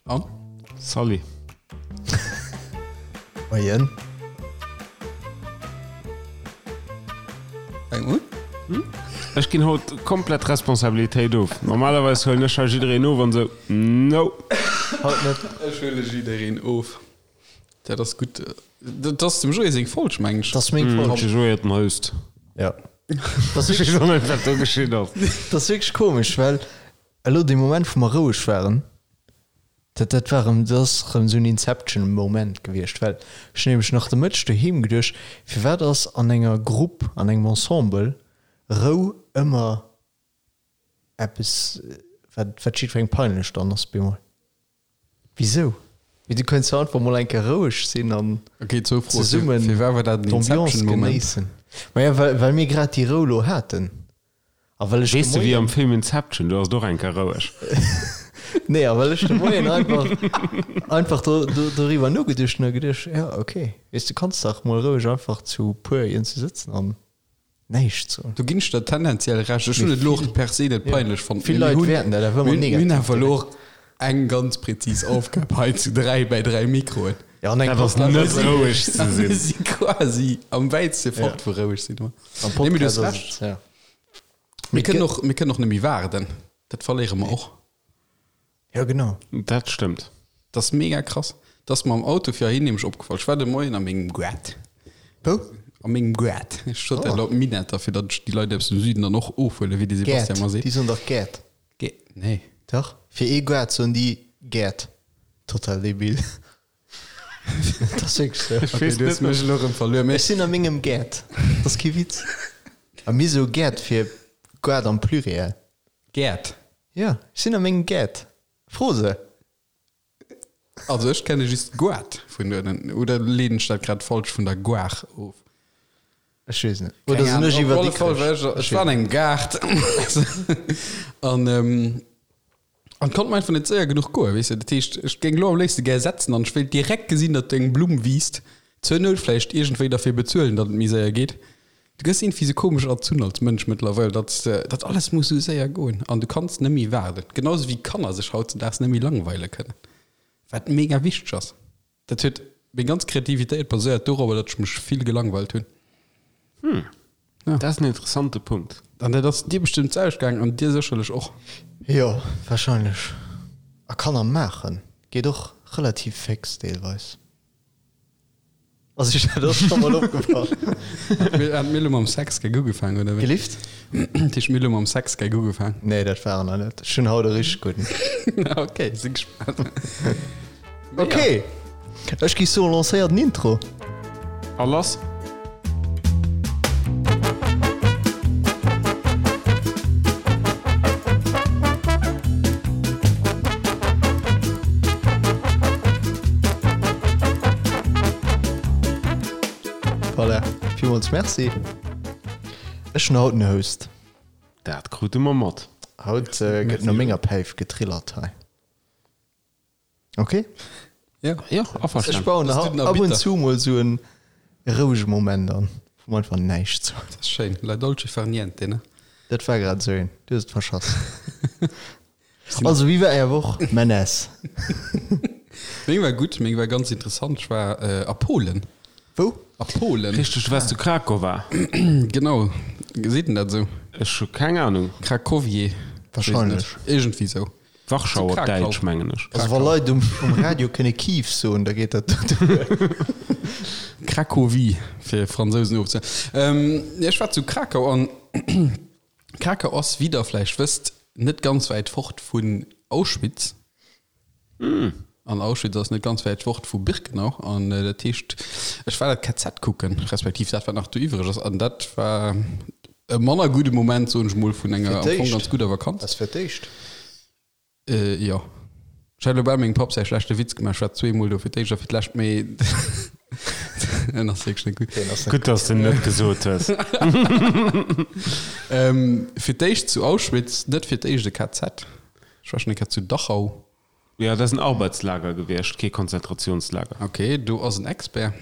An? Salut. Moien. Fänk un. Ech ginn haut komplett Responsabilitéit of. Normalerweis huelen ech hei jiddereen of an sou, no. Haut net. Ech huele jiddereen of. Dat ass gutt. Dat ass dem Joé seng Folg, meng ech. Dat ass meng Folg. De Joé huet den Host. Ja. Dat ass Ech weess och net, wat do geschitt ass. Dat ass wierklech komesch, well elo dee Moment, wou mer roueg waren, dat, dat war erëm, dat ass erëm esou en Inception-Moment gewiescht, well ech hunn nämlech nach de Mëtteg doheem geduecht, firwat ass an enger Grupp, an engem Ensemble Rou ëmmer eppes, wat, wat jiddwerengem peinlech dann ass bemol? Wisou? Mee du könns jo einfach mol eng Kéier roueg sinn an Okay, zwou Froen. zesummen Fir wat war dat en d'Ambiance Inception-Moment? genéissen. Maja, well, well mir grad déi Rou lo haten. A well ech de Weess de, wéi am Moien. Film Inception, do ass et och eng Kéier roueg. Nee, a well ech de Moien einfach, einfach do, do, doriwwer nogeduecht hunn a geduecht, ja, okay, weess du kanns dach mol roueg einfach zu puer iergendwou sëtzen an näischt soen. Do ginn ech der tendenziell Recht. Ech hunn et elo och per se net peinlech fonnt. Vill Leit wäerten dat awer ëmmer Mir hunn negativ awer elo direkt. och eng ganz präzis Aufgab hei zu 3 bei 3 Mikroen. Ja, an eng Dat ass net roueg ze Mir sinn. si quasi am wäitste fort vu roueg sinn. Am Nee, mee du Podcast hues ass Recht. et, ja. Mir kënnen och, mir kënnen och net méi waarden. Dat verléiere mer och. Ja, genau. Dat stëmmt. Dat ass mega krass. Dat ass mer am Auto fir heihin nämlech opgefall. Ech war de Moien a mengem Gaart. Wou? A mengem Gaart. Ech sot dat Oh. elo op Minetter, fir datt ech déi Leit aus dem Süden dann och ofhuelen, wéi de Sebastian Gäert. mer seet. Déi soen dach Gäert. Gä-, nee. Dach. Fir ee Gaart soen déi Gäert. Total debil. Dat ass wierklech sou. Okay, du hues mech elo erëm verluer. Mee Ech sinn a mengem Gaart. Dat ass kee Witz. A mir soe Gäert fir Gaart am Pluriel. Gäert. Jo, ech sinn a mengem Gaart. Fro se. Also ech kenne just Goart vun uewen. Oder leeden ech dat grad falsch vun der Goar of? Ech weess net. Oder sinn ech iwwer Op alle Fall war ech, ech war an engem Gaart an an konnt mer einfach net séier genuch goen, weess de. Dat heescht, ech géing elo am léifste gär setzen an ech wéilt direkt gesinn, datt eng Blumm wiisst. Zur Nout vläicht iergendwéi derfir bezuelen, datt et méi séier geet. Du gëss iergendwéi sou komesch erzunn als Mënsch mëttlerweil, datt datt alles muss sou séier goen an du kanns net méi waarden. Genau sou wéi Kanner sech hautzedaags net méi langweile kënnen, wat mega wichteg ass. Dat huet meng ganz Kreativitéit baséiert dorobber, datt ech mech vill gelangweilt hunn. Hm, dat ass en interessante Punkt. An dat ass dir bestëmmt d'selwecht gaangen an dir sécherlech och. Jo, warscheinlech. A Kanner maachen geet och relativ féx deelweis. Also ech dat ass scho mol opgefall. Hat mir elo mam Sexgag ugefaangen, oder wéi? Gelift? Dat heescht, mir elo mam Sexgag ugefaangen? Nee, dat war en nach net. Ech hunn haut e richteg gudden. Ok, si gespaant. Ok, ech gi soen, lancéier den Intro. A lass! Voilà, villmools Merci. Ech hunn haut den Host. Dat krute mer mat. Haut gëtt no menger Päif getrillert hei. Ok? Ja, ja, averstanen. Ech bauen ab und zu mol sou en rouege Moment an, wou mer einfach näischt soen. Dat ass schéin. La dolce far niente, ne? Dat war grad sou een. Du hues et verschass. Also, wéi war Är Woch, Menes? Meng war gutt, meng war ganz interessant. Ech war a Polen. Wou? A Polen. Richteg, du waars zu Krakowa. Genau. Seet en dat esou? Ech hu keng Anung. Krakowie. Wahrscheinlech. Iergendwéi sou. Warschau op Däitsch, mengen ech. Also wa Leit um Radio kënne Kiew soen, da geet dat duer. Cracovie, fir Fransousen ofze. Ech war zu Krakau an Krakau ass, wéi der vläicht wësst, net ganz wäit fort vun Auschwitz. An Auschwitz ass net ganz wäit fort vu Birkenau. An dat heescht, ech war dat KZ kucken, respektiv dat, wat nach do iwwreg ass. An dat war e manner gudde Moment, soen ech mol, vun enger am Fong ganz gudder Vakanz. Ass fir d'éischt? Jo. Ech hat elo bal mengem Papp säi schlechte Witz gemaach, ech war zweemol do, fir d'éischt a fir d'lescht, mee en ass wierklech net gutt. Gutt, dass de en net gesot hues. Fir d'éischt zu Auschwitz, net fir d'éischt e KZ. Ech war schonn eng Kéier zu Dachau. Jo, dat ass en Arbeitslager gewiescht, kee Konzentrationslager. Ok, do ass en Expert.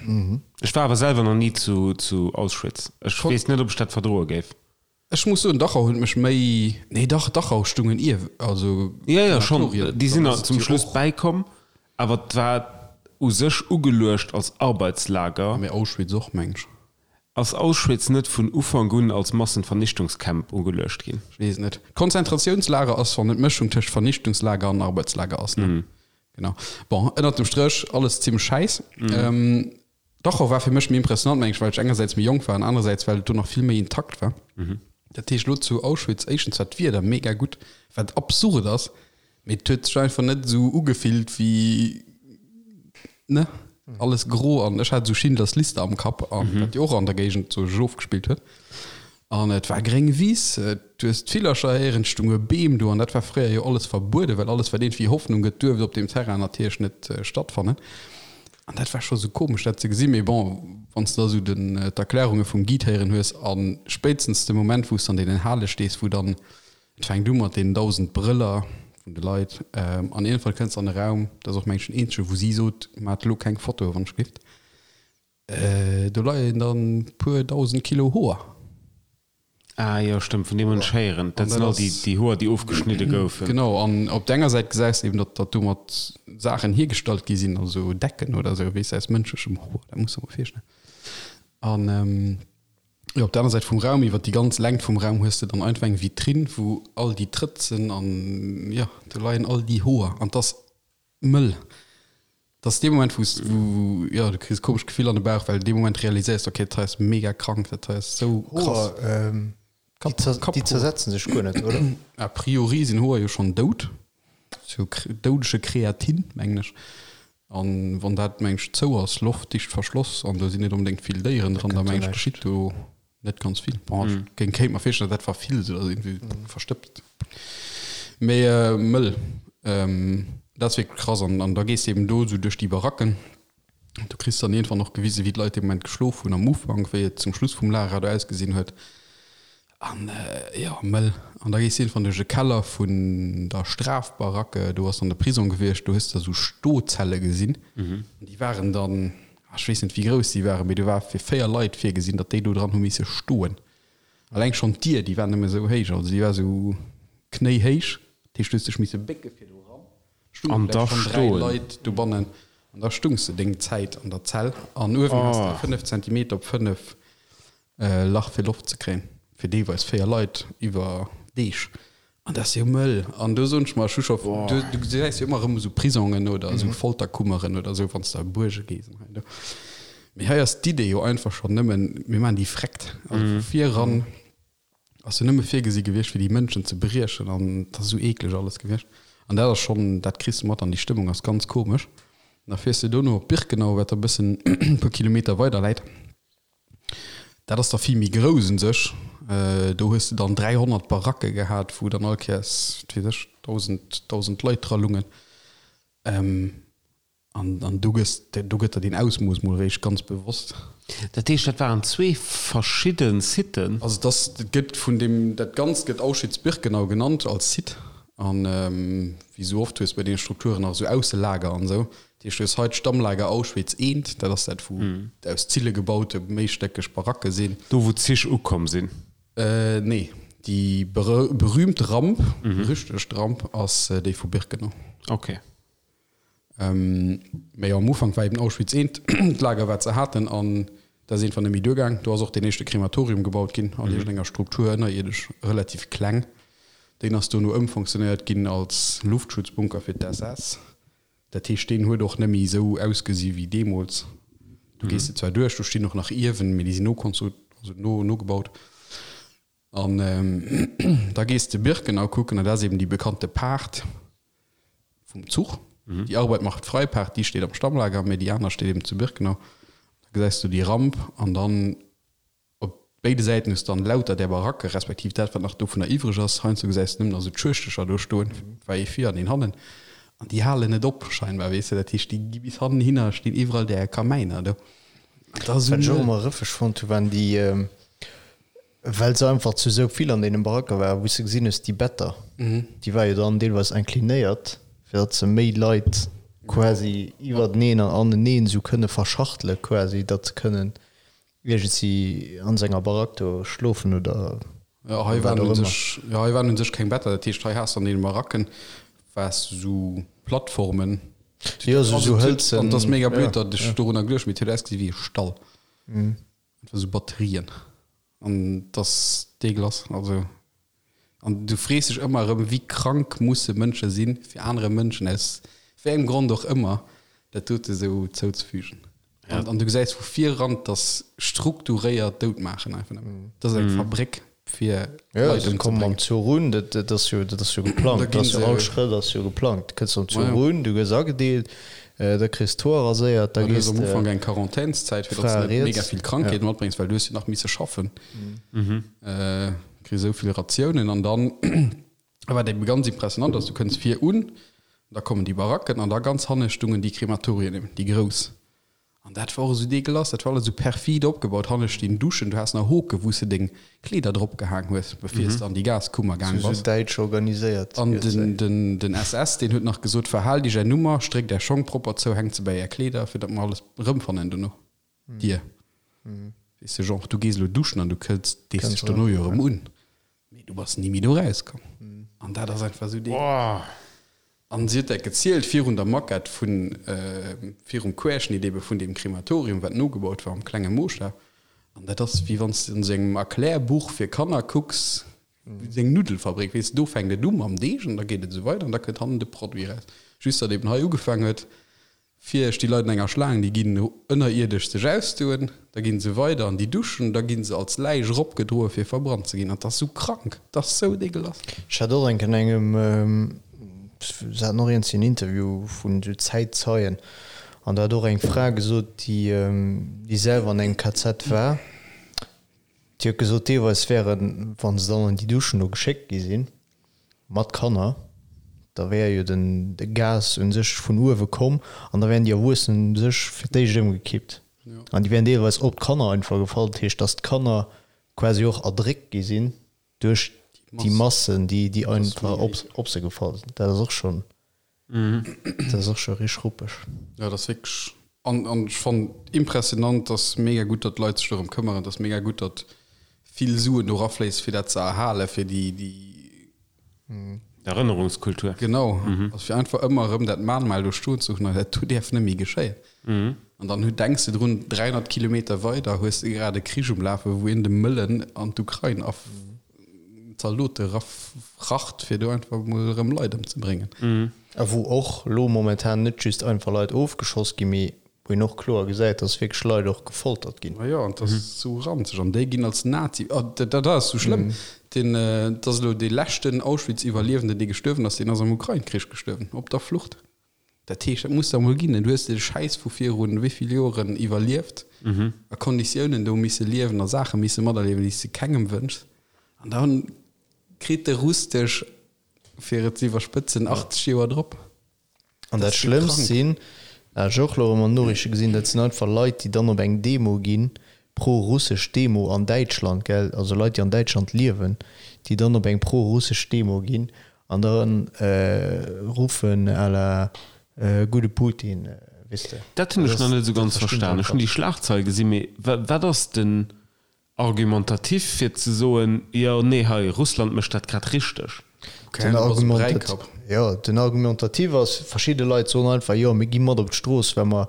Ech war awer selwer nach ni zu Auschwitz. Ech weess net, ob ech dat verdroe géif. Ech muss soen, Dachau huet mech méi, nee dach, Dachau stungen ier, also Jo, jo, schonn, déi sinn nach zum Schluss bäikomm, awer et war u sech ugeluecht als Arbeitslager. Mee Auschwitz och, meng ech. Ass Auschwitz net vun Ufank un als Massenvernichtungscamp ugeluecht ginn? Ech weess et net. Konzentratiounslager ass, wann et d'Mëschung tëscht Vernichtungslager an Arbeitslager ass, ne? Genau. Bon, ënnert dem Stréch alles zimmlech schäiss. Dachau war fir mech méi impressionant, meng ech, well ech engersäits méi jonk war an anerersäits well et do nach vill méi intakt war. Dat heescht elo zu Auschwitz, éischtens war d'Wieder mega gutt, wat absurd ass, mee et huet sech einfach net esou ugefillt wéi, ne, alles gro an ech hat esou Schindlers Liste am Kapp an wat jo och an der Géigend sou sech ofgespillt huet. An et war gréng Wiss, du hues d'Villercher héieren, et stounge Beem do an dat war fréier jo alles verbueden, well alles wat iergendwéi Hoffnung gëtt, duerft op deem Terrain natierlech net stattfannen. An dat war scho sou komesch dat ze gesinn. Mee bon, wann s de da sou den d'Erklärunge vum Guide héieren hues a spéitstens de Moment wou s de an deenen Hale stees, wou dann, et fänkt u mat deenen 1.000 Brëller vun de Leit an iergendwann kënns de an e Raum, dat ass och mengen ech den eenzege wou si sot, maacht elo keng Fotoe wann ech gelift, do leien dann puer 1.000 Kilo Hoer. Ah jo, stëmmt, vun deem hunn ech héieren. Dat sinn all déi, déi Hoer, déi ofgeschnidde goufen. Genau, an op der enger Säit gesäis de eben, datt, datt domat Saachen hiergestallt gi sinn, also Decken oder esou, weess de, aus mënschlechem Hoer, dat muss de mol virstellen. An jo, op der aner Säit vum Raum, iwwer déi ganz Längt vum Raum hues de dann einfach eng Vitrinn, wou all déi Trëtzen an, jo, do leien all déi Hoer an 't ass Mëll. Dat ass dee Moment, wou s, wou, jo, du kriss e komescht Gefill an de Bauch, well dee Moment realiséiers de, okay, dat hei ass mega krank, dat hei ass sou krass. Hoer, ähm, déi zer, déi zersetzen sech guer net, oder? A priori sinn Hoer jo schonn dout, sou doudege Kreatin, mengen ech. An wann dat, mengen ech, zou ass, loftdicht verschloss, an do sinn net onbedéngt vill Déieren dran, da mengen ech, geschitt do Net ganz vill. Bon, ech géing kéint mer virstellen, dat war vill sou, dass irgendwie verstëbst. Mee mëll. Dat ass wierklech krass. An, an da gees de eben do sou duerch déi Baracken. Du kriss dann iergendwann och gewisen, wéi d'Leit dee Moment geschlof hunn am Ufank, wéi et zum Schluss vum Lager do ausgesinn huet. An jo, mëll. An da gees de iergendwann duerch e Keller vun der Strafbaracke, do ass dann de Prisong gewiescht, do hues de da sou Stozelle gesinn. An déi waren dann Ech weess net wéi grouss déi waren, mee do war fir 4 Leit virgesinn, datt déi do dran hu misse stoen. Alleng schonn d'Dier, déi war nëmme sou héich, also déi war sou knéihéich, dat heescht du hues dech misse bécke fir do eran. Stunge An da vläicht schonn 3 stoen. Leit dobannen an da stungs de deng Zäit an der Zell an uewen has de Oh. 5 Zentimeter op 5 Lach fir Loft ze kréien, fir deelweis 4 Leit iwwer Deeg. An dat ass jo mëll. An do soen ech mer, ech hu scho, du, du gesäis jo ëmmer erëm esou Prisongen oder esou Folterkummeren oder esou, wann s de a Buerge gees an hei an do. Mee hei ass d'Idee jo einfach schonn nëmmen, mir maachen déi vreckt. Also vu vir eran ass jo nëmme virgesi gewiescht, fir déi Mënschen ze briechen an dat ass esou eekleg alles gewiescht. An dat ass schonn, dat kriss de mat an déi Stëmmung ass ganz komesch. An da fiers de dono op Birkenau, wat da e bëssen e puer Kilometer weider läit. Dat ass da vill méi grouss un sech. Do hues de dann 300 Baracke gehat, wou dann all Kéiers, wat weess ech, 1.000, 1.000 Leit dra lungen. An, an do gëss, do gëtt der deen Ausmooss mol eréischt ganz bewosst. Dat heescht, dat waren zwee verschidde Siten? Also et ass, et gëtt vun deem, dat Ganzt gëtt Auschwitz-Birkenau genannt als Site. An wéi esou oft hues de bei deene Strukturen nach esou Ausselager an esou. Dat heescht, du hues hei d'Stammlager Auschwitz I, dat ass dat, wou aus Zille gebaute méistéckeg Baracke sinn. Do, wou d'Zich ukomm sinn? Nee, déi berühmt Ramp, berüchtegt Ramp ass déi vu Birkenau. Ok. Mee jo, am Ufank war eben Auschwitz I d'Lager, wat se haten, an dat ass iergendwann net méi duergaang. Do ass och deen éischte Krematorium gebaut ginn, an iergendenger Struktur ënnerierdesch, relativ kleng. Deen ass dono ëmfonctionéiert ginn als Luftschutzbunker fir d'SS. Dat heescht, deen huet och net méi esou ausgesi wéi deemools. Do gees de zwar duerch, do stinn och nach Iewen, mee déi sinn nokonstru-, also no, nogebaut. An da gees de Birkenau kucken, an dat ass eben déi bekannte Paart vum Zuch. Déi Arbeit macht frei Paart, déi steet am Stammlager, mee déi aner steet eben zu Birkenau. Da gesäis du déi Ramp an dann Op béide Säiten hues de dann lauter där Baracke, respektiv dat, wat nach dovunner iwwreg ass. Heiansdo gesäis de nëmmen nach esou d'Schuechtercher do stoen, war ee vir an een hannen. An déi halen net op, scheinbar, weess de. Dat heescht, déi gi bis hannen hinner, stinn iwwerall där Kamäiner do. An dat ass esou. Wat ech och ëmmer rëffeg fonnt hu waren déi, well se einfach zu esou vill an deene Baracke waren, wou s de gesinn hues, déi Better, déi ware jo dann deelweis inclinéiert, fir datt se méi Leit quasi iwwerteneen an aneneen esou kënne verschachtele quasi, datt se kënnen Iergendsi an senger Barack do schlofen oder. Jo, hei waren u sech, jo, hei waren u sech keng Better. Dat heescht, hei has de an deene Baracken waars de sou Plattformen. Jo, sou, sou hëlzen. An et ass mega blöd, datt ech dorunner geduecht hunn, mee et huet ausgesi wéi e Stall. Einfach sou Batterien. An et ass deeglass. Also, an du frees dech ëmmer erëm, wéi krank musse Mënsche sinn, fir anere Mënschen aus wéi engem Grond och ëmmer dat dote sou zouzefügen. An, an du gesäis vu vir eran, dass strukturéiert dout maachen einfach nëmmen. Dat ass eng Fabréck fir Ja, Leit se kommen am ëmzebréngen. Zuch un, dat, dat ass jo, dat ass jo geplangt. Da Dat ginn ass jo se. all Schrëtt ass jo geplangt. Du kënns am Zuch Majo. un, du gëss agedeelt, da kriss d'Hoer raséiert, da Du hues gees am de Ufank eng Quarantänszäit, fir dass Fra du net mega riets. vill Ja. Krankheeten matbréngs, well du hues jo nach misse schaffen. Kriss esou vill Ratiounen an dann, wat ebe ganz impressionant ass, du kënns vir un, da kommen déi Baracken an da ganz hanne stungen déi Krematorien eben, déi grouss. An dat war och esou deegelass, dat war alles esou perfid opgebaut. Hanne stinn Duschen, du has nach Hoke wou s de deng Kleeder drop gehaang hues, bevir s de an déi Gaskummer gaang Sou bass. sou däitsch organiséiert An gëtt den, den, den SS, deen huet nach gesot, Verhaalt iech är Nummer, stréckt är Schong propper zou, hänkt se bäi är Kleeder, fir datt mer alles erëmfannen dono. Dir. Weess de, genre, du gees elo duschen an du kënns, dees dech dono jo erëm un. Mee du bass ni méi do rauskomm. An dat ass einfach esou dee. An si huet dat gezielt virun der Maquette vun, virum Querschnitt ebe vun deem Krematorium, wat nogebaut war am klenge Mooschtaf. An dat ass, wéi wann s de an esou engem Erklärbuch fir Kanner kucks, wéi esou eng Nuddelfabrik, weess de, do fänkt et u mam Deeg an da geet et esou weider an da kënnt hannen de Produit eraus. Just datt eben hei ugefaang huet, Vir sti Leit an enger Schlaang, déi ginn ënnerierdesch sech ausdoen, da ginn se weider an déi Duschen, da ginn se als Läich eropgedroe fir verbrannt ze ginn. An 't ass sou krank, 't ass sou deegelass. Ech hat och eng Kéier an engem, se haten och iergendwéi en Interview vun esou Zäitzeien, an do hat och eng Fra gesot, déi déi selwer an engem KZ war, déi huet gesot, deelweis wären, wa se dann an déi Duschen do geschéckt gi sinn, Mat Kanner, da wär jo den de Gas un sech vun uewe komm an da wären déi Erwuessenen u sech fir d'éischt ëmgekippt an déi wären deelweis op d'Kanner einfach gefall. Dat heescht, datt d'Kanner quasi och erdréckt gi sinn duerch déi Massen, déi déi einfach op op se gefall sinn. Dat ass och schonn, dat ass och scho richteg ruppeg. Jo, dat ass wierklech, an an ech fannen impressionant, dass mega gutt, datt d'Leit sech dorëm këmmeren, dass mega gutt, datt vill Suen do rafléissen, fir dat ze erhalen, fir déi, déi. Erënnerungskultur. Genau, also fir einfach ëmmer erëm dat Mahnmal do stoen ze hunn, an dat do däerf net méi geschéien. An dann hu denks de drun, 300 Kilometer weider hues de grad e Krich um Lafen, wou een de Mëllen an d'Ukrain a Zaldote rafracht, fir do einfach mol erëm Leit ëmzebréngen. A wou och elo momentan net just einfach Leit ofgeschoss ginn, mee wou een och kloer gesäit, dass wierklech Leit och gefoltert ginn. Ma jo, an dat ass esou ranzeg. An déi ginn als Nazi, oh, dat, dat ass esou schlëmm. Deen, dat ass elo dee leschten Auschwitz-Iwwerliewenden, dee gestuerwen ass, deen ass am Ukrain-Krich gestuerwen, op der Flucht. Dat heescht, dat muss der emol ginn. Du hues dee Schäiss vu virun wéi vill Joren iwwerlieft, a Konditiounen do misse liewen a Saache misse materliewen, déi s de kengem wënschs. An da kritt de Russ dech, fir et ze iwwerspëtzen, 80 Joer drop. An dat Schlëmmst sinn, dat hat ech och elo erëm an den Noriichte gesinn, dat sinn einfach Leit, déi dann op eng Demo ginn, pro-russesch Demo an Däitschland, gell, also Leit, déi an Däitschland liewen, déi dann op eng pro-russesch Demo ginn an da ruffen à la gudde Putin, weess de. Dat hunn ech nach net esou ganz verstan. Ech hunn déi Schlagzeil gesinn, mee wat ass den Argumentatif fir ze soen, jo, nee, hei, Russland mécht dat grad richteg. Den Argumentatif, jo, den Argumentatif ass, verschidde Leit soen einfach, jo, mir gi mat op d'Strooss, well mer,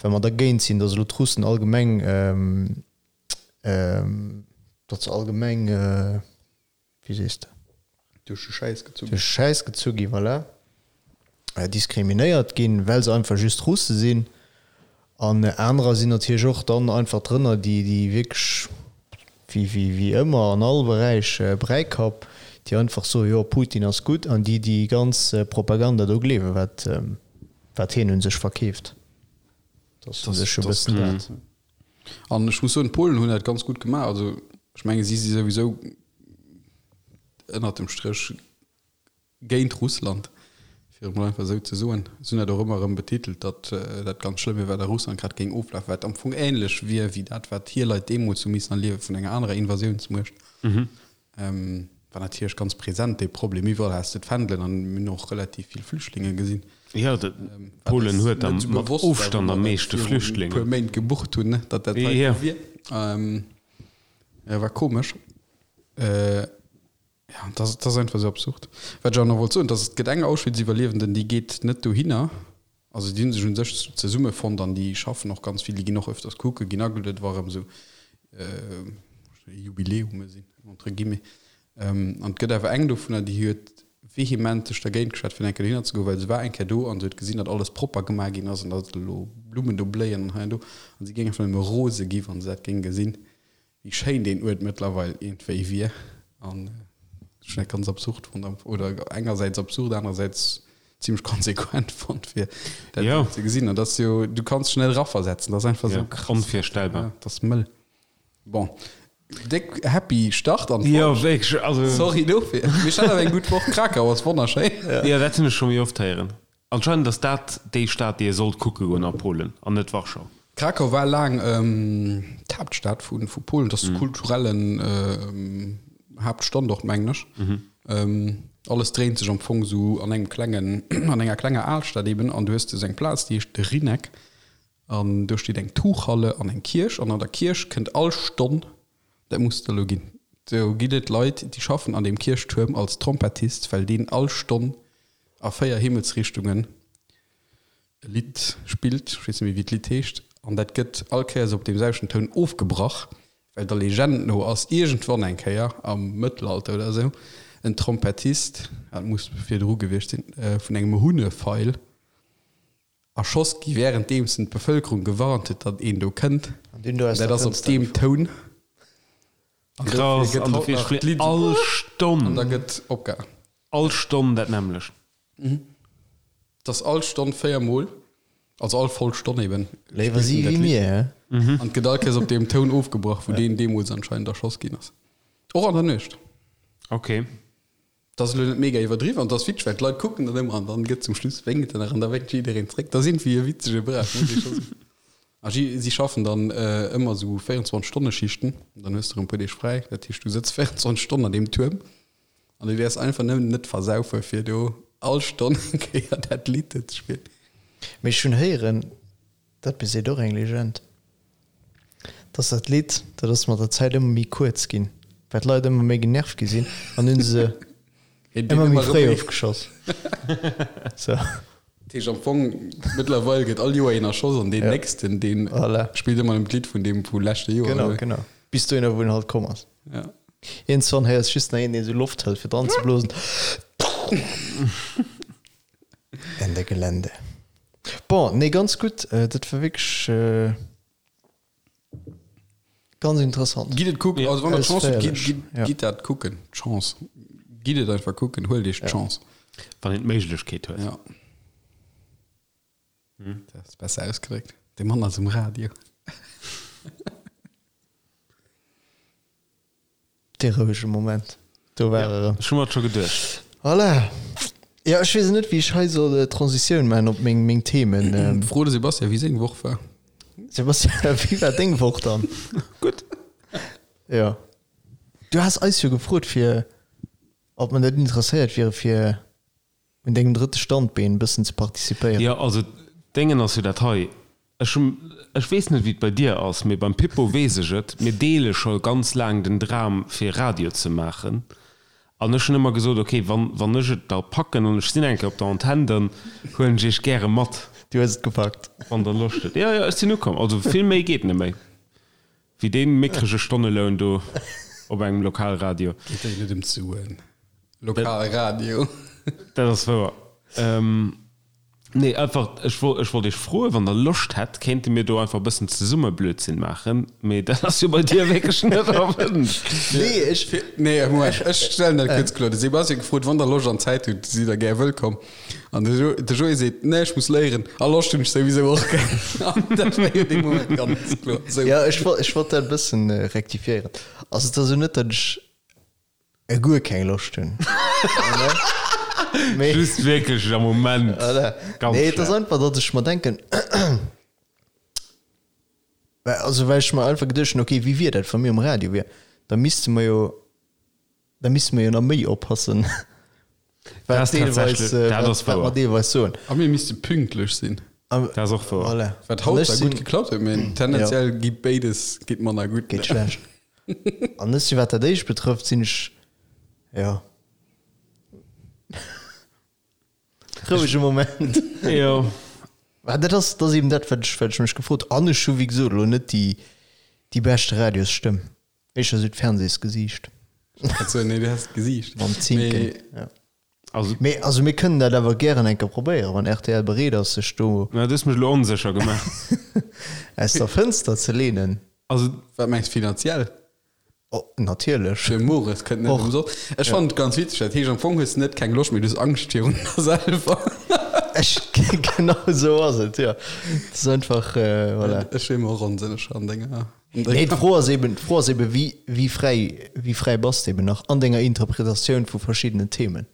well mer dergéint sinn, datt elo d'Russen allgemeng, datt se allgemeng, wéi sees de? Duerch de Schäiss gezu ginn. Duerch de Schäiss gezu ginn, voilà. Diskriminéiert ginn, well se einfach just Russe sinn. An anerer sinn natierlech och dann einfach drënner, déi, déi wierklech, wéi, wéi, wéi ëmmer an all Beräich, Bräikapp, déi einfach soen, jo, Putin ass gutt, an déi déi ganz Propaganda do gleewen, wat, wat hien un sech verkeeft. Dat ass u sech e bëssen dat. An ech muss soen, d'Polen hunn dat ganz gutt gemaach. Also ech menge si si souwisou ënnert dem Stréch géint Russland, fir et mol einfach esou ze soen. Si hunn dat och ëmmer erëm betitelt, datt dat ganz schlëmm wier, wat a Russland grad géing oflafen, wat am Fong änlech wier wéi dat, wat hir Leit deemools hu missen erliewe vun enger anerer Invasiounsmuecht. War natierlech ganz present dee Problem. Iwwerall has de d'Fändelen an mir hunn och relativ vill Flüchtlinge gesinn. Jo, Polen huet am mat Ofstand am meeschte Flüchtlingen. Puer Méint gebucht hunn, datt dat hei esou wier. Jo, war komesch. Ja, dat ass einfach esou absurd. Wat ech awer nach wollt soen, dass et gëtt eng Auschwitz-Iwwerliewenden, déi geet net dohinner. Also déi hu sech u sech zesummefonnt an déi schaffen och ganz vill, déi ginn och öfters kucken, ginn agelueden, wa erëm esou Jubiläume sinn, entre guillemets. An et gëtt awer eng dovunner, déi huet vehement sech dergéint geschwat, fir eng Kéier dohinner ze goen, well se war eng Kéier do an se huet gesinn, datt alles propper gemaach ginn ass an datt elo Blummen do bléien an hei an do. An si géing einfach nëmme rose gi wa se dat géing gesinn. wéi schéin deen Uert mëttlerweil iergendwéi wier an ech hunn dat ganz absurd fonnt, oder engersäits absurd, anerersäits zimmlech konsequent fonnt fir dat Jo. ze gesinn. An dat ass jo, du kanns dech net eraversetzen, dat ass einfach Ja, esou krass. onvirstellbar. Ja, dat ass mëll. Bon, déck happy Start an Jo, d'Woch. wierklech, also. Sorry dofir. Mee ech hat awer eng gutt Woch. Krakau ass wonnerschéin. Jo, dat hunn ech scho méi oft héieren. Anscheinend ass dat déi Stad déi ee sollt kucke goen a Polen an net Warschau. Krakau war laang d'Haaptstad vu Polen, dat ass de kulturellen Haaptstandort mengen ech. Alles dréint sech am Fong esou an engem klengen, an enger klenger Alstad eben an du hues do esou eng Plaz déi heescht de Rynek an do steet eng Tuchhalle an eng Kierch an an der Kierch kënnt all Stonn, dat muss et elo ginn, do ginn et Leit déi schaffen an deem Kierchtuerm als Trompettist, well deen all Stonn a 4 Himmelsrichtungen e Lidd spillt, ech weess net méi wéi d'Lidd heescht, an dat gëtt all Kéiers op deem selwechten Toun ofgebrach, well der Legend no ass iergendwann eng Kéier am Mëttelalter oder esou en Trompettist, dat muss virdru gewiescht sinn, vun engem Hunnefeil erschoss gi wärenddeems en d'Bevëlkerung gewarnt huet, datt een do kënnt. An deen do aus Dat der ass op Fënster deem gefall. Toun. An dofir Krass, gëtt an haut dofir nach spillt d'Lidd all an Stonn, da gëtt opgehal. all Stonn dat nämmlecht. Et ass all Stonn 4 mol, also all voll Stonn eben, Léiwer spillt si en dat wéi Lidd. mir, hä? An et gëtt all Kéiers op deem Toun ofgebrach, wou deen deemools anscheinend erschoss ginn ass. Och an der Nuecht. Okay. Dat ass elo net mega iwwerdriwwen an dat ass witzeg, well d'Leit kucken dat ëmmer an dann gëtt zum Schluss wénkt en nach an da wénkt jiddereen zréck. Dat ass iergendwéi e witzege Brauch, muss ee scho soen. A si, si schaffen dann ëmmer esou 24 Stonne Schichten, dann hues de erëm e puer Deeg fräi. Dat heescht, du sëtz 24 Stonnen an deem Tuerm an du däerfs einfach nëmmen net versaufe fir do all Stonn eng Kéier dat Lidd ze spillen. Mee ech hunn héieren, Dat beseet och eng Legend, dass dat Lidd, dat ass mat der Zäit ëmmer méi kuerz ginn, well d'Leit ëmmer méi genervt gi sinn an hunn se ëmmer méi fréi ofgeschoss. Sou. Dat heescht am Fong, mëttlerweil gëtt all Joer een erschoss an deen nächsten, deen spillt ëmmer nëmmen d'Lidd vun deem vu leschte Joer. Genau, genau. Bis dohinner, wou en halt komm ass. Ja. Iergendzwann héiers just nach een, deen esou Loft hëlt, fir dran ze blosen. Ende Gelände. Bon, nee, ganz gutt. Dat war wierklech ganz interessant. Gitt et kucken, also wann der d'Chance hutt, gitt, Ausféierlech, gitt, ja. gitt dat kucken. D'Chance. Gitt et einfach kucken, huelt iech d'Chance. Wann een d'Méiglechkeet huet. Ja. Dat ass besser ausgedréckt. De Mann ass um Radio. Dee rouege Moment, do war e rëm. Ech hu mer et scho geduecht. Voilà. Jo, ech weess net, wéi ech hei soll d'Transitioun maachen op meng, meng Themen. Fro de Sebastian, wéi seng Woch war. Sebastian, wéi war deng Woch dann? Gutt. Jo. Du has eis jo gefrot, fir, ob mer net interesséiert wiere fir un dengem drëtte Standbeen e bëssen ze participéieren. Jo, also d'Déngen ass jo dat hei, ech hunn, ech weess net wéi et bei dir ass, mee beim Pippo weess ech et, mir deele scho ganz laang den Dram fir Radio ze maachen an ech hunn ëmmer gesot, ok, wann, wann ech et da packen an ech sinn eng Kéier op der Antenn, dann huelen ech iech gäre mat. Du hues et gepackt. Wann der Loscht hutt. Jo, jo, ech sinn ukomm, also vill méi geet net méi wéi dee mickrege Stonneloun do op engem Lokalradio. Geet jo net ëm d'Suen. Lokalradio. Dat ass wouer. Nee, einfach, ech wollt, ech wollt Iech froen, wann Der Loscht hätt, kéinte mir do einfach e bëssen zesumme Blödsinn maachen. Mee dat ass jo bei dir wierklech net erwënscht. Nee, ech. Nee, Moment, ech stellen dat kuerz kloer. De Sebastian huet gefrot, wann Der Loscht an Zäit hutt, sidd Der gär wëllkomm. An de Jo, de Joé seet, nee, ech muss léieren a Loscht hunn ech souwisou och keng. An dat war jo dee Moment ganz kloer. Sou. Jo, ech wollt, ech wollt dat e bëssen rektifiéieren. Also et ass jo net, datt ech E guer keng Loscht hunn. Mee just wierklech am Moment. Voilà. Ganz Nee, et ass schlecht. einfach, datt ech mer denken, well, also well ech mer einfach geduecht hunn, okay, wéi wier dat, wa mir um Radio wier? Da misste mer jo, da misste mer jo nach méi oppassen, Dat wat ass deelweis, tatsächlech, äh, dat wat, ass wat mer wouer. deelweis soen. A mir misste pünktlech sinn. Am, Dat ass och wouer. voilà. Wat An haut ech zwar gutt sinn, geklappt huet, mee jo, tendenziell geet béides geet manner gutt. geet schlecht. An ech si wat dat éischt betrëfft, sinn ech, jo. Rouege Moment. Jo. Mä dat ass, dat ass eben dat, wat ech, wat ech mech gefrot An ech hu wéi gesot elo net déi, déi beschte Radiosstëmm. Éischter esou d'Fernseesgesiicht. Also, nee, du has d'Gesiicht. Mam Zinken, Mee ja. Also. Mee also mir kënnen dat awer gären eng Kéier probéieren, wann rtl bereet ass, sech do. Na, du hues mech elo onsécher gemaach. Aus der Fënster ze leenen. Also. Wat mengs de, finanziell? Oh, natierlech. De Mores kënnt net ëmsoss. Ech fannen et ganz witzeg, dat heescht am Fong hues de net keng Loscht, mee du hues Angscht virun der selwer. Ech, genau esou ass et, jo. Et ass einfach, voilà. Ech wier mer och onsécher an denger, an denger. Nee, d'Fro ass eben, d'Fro ass eben, wéi, wéi fräi, wéi fräi bass de eben nach an denger Interpretatioun vu verschiddenen Themen?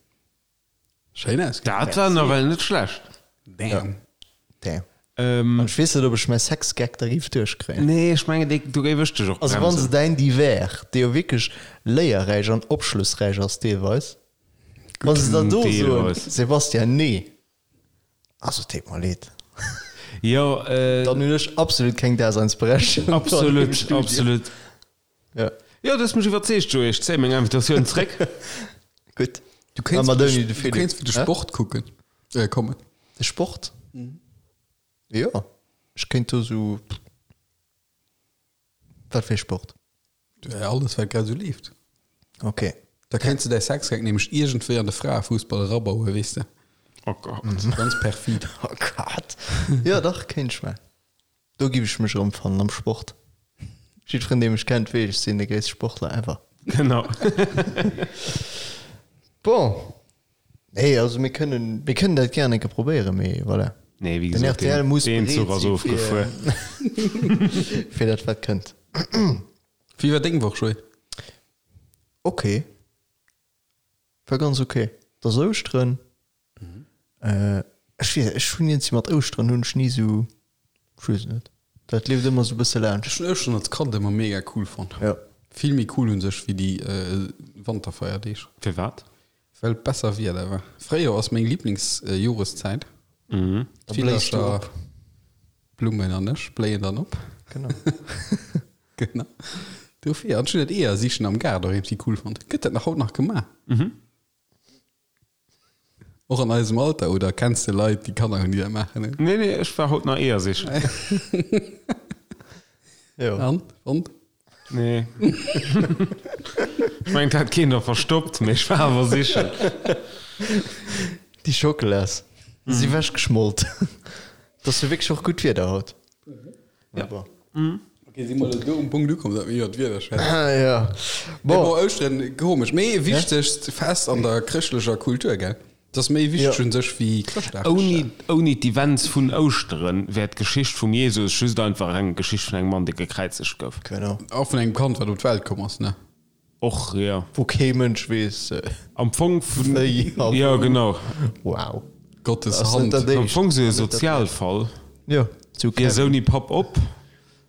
Schéin ausgedréckt. Dat war nawell net schlecht. Damn. Damn. An ech weess net, ob ech mäi Sex-Gag da géif duerchkréien. Nee, ech mengen, dee, do géif ech dech och Also wann se bremsen. däin Divers, dee jo wierklech léierräich an opschlussräich ass deelweis, wa se dann do soen, Deelweis. Sebastian, nee, also et deet mer leed, Jo, dann hunn ech absolut keng Daseinsberechtegung do an deem absolut, Studio. absolut. Ja. Jo, du hues mech iwwerzeegt, Joé. Ech zéie meng Invitatioun zréck. Gutt. Du kéints Mat fir ouni de, de du Philippe. kéints fir de Hä? Sport kucken, äh, kommen. De Sport? Jo, ech kéint do sou. Wat fir ee Sport? Ja, alles, wat grad esou leeft. Ok. Da kéints de däi Sexgag nämlech iergendwéi an de Fraefussball erabauen, weess de. Oh Gott. Ganz perfid. Oh Gott. Jo, dach, kéint ech maachen. Do giff ech mech erëmfannen am Sport. Jiddferen dee mech kennt weess, ech sinn de gréisste Sportler ever. Genau. Bon, nee, also mir kënnen, mir kënnen dat gären eng Kéier probéieren, mee voilà. Nee, wéi Den gesot, rtl deen, muss deen bereet Zuch ass si fir, ofgefuer. fir dat wat kënnt. Wéi war deng Woch, Joé? Ok, war ganz ok. Et ass Ouschteren. Ech weess, ech hunn iergendwéi mat Ouschteren hunn ech ni esou, ech weess et net, dat leeft ëmmer esou e bësse laanscht. Ech hunn Ouschteren als Kand ëmmer mega cool fonnt. Jo. Vill méi cool un sech wéi déi Wanterfeierdeeg. Firwat? Well et besser Wieder war. Fréijoer ass meng Liblingsjoreszäit. Da bléis du D'Villercher, op. Blummen an ech bléien dann op. Genau. Genau. Dofir. An ech hunn dat Eeër sichen am Gaart och iergendwéi cool fonnt. Gëtt dat nach haut nach gemaach? Och an eisem Alter, oder kenns de Leit, déi Kanner hunn, déi dat maachen? Nee, nee, ech war haut nach Eeër sichen. Jo. An? Fonnt? Nee. Ech mengen, et hat keen der verstoppt, mee ech war awer sichen. Déi Schockelas si wechgeschmolt. Et ass jo wierklech och gutt Wieder haut. Ja. Bon. Okay, si mer elo do um Punkt ukomm, datt mir iwwer d'Wieder schwätzen. Ja. Mee Bon. bon, Ouschteren, komesch, mee wichtegst Fest an der chrëschtlecher Kultur, gell? Dat ass méi wichteg Ja. un sech wéi Chrëschtdag. Ouni, ouni d'Events vun Ouschteren wär d'Geschicht vum Jesus just einfach eng Geschicht vun engem Mann, dee gekräizegt gouf. Genau. Och vun engem Kand, wat op d'Welt komm ass, ne? Och, jo. Wou kee Mënsch weess, Am Fong vun, wéi a jo, wou. genau. Wow. Gottes Ass net Hand. dat Am éischt. Fong sou e Ass net dat Sozialfall. Jo, zu Gees Kevin. ouni Papp op,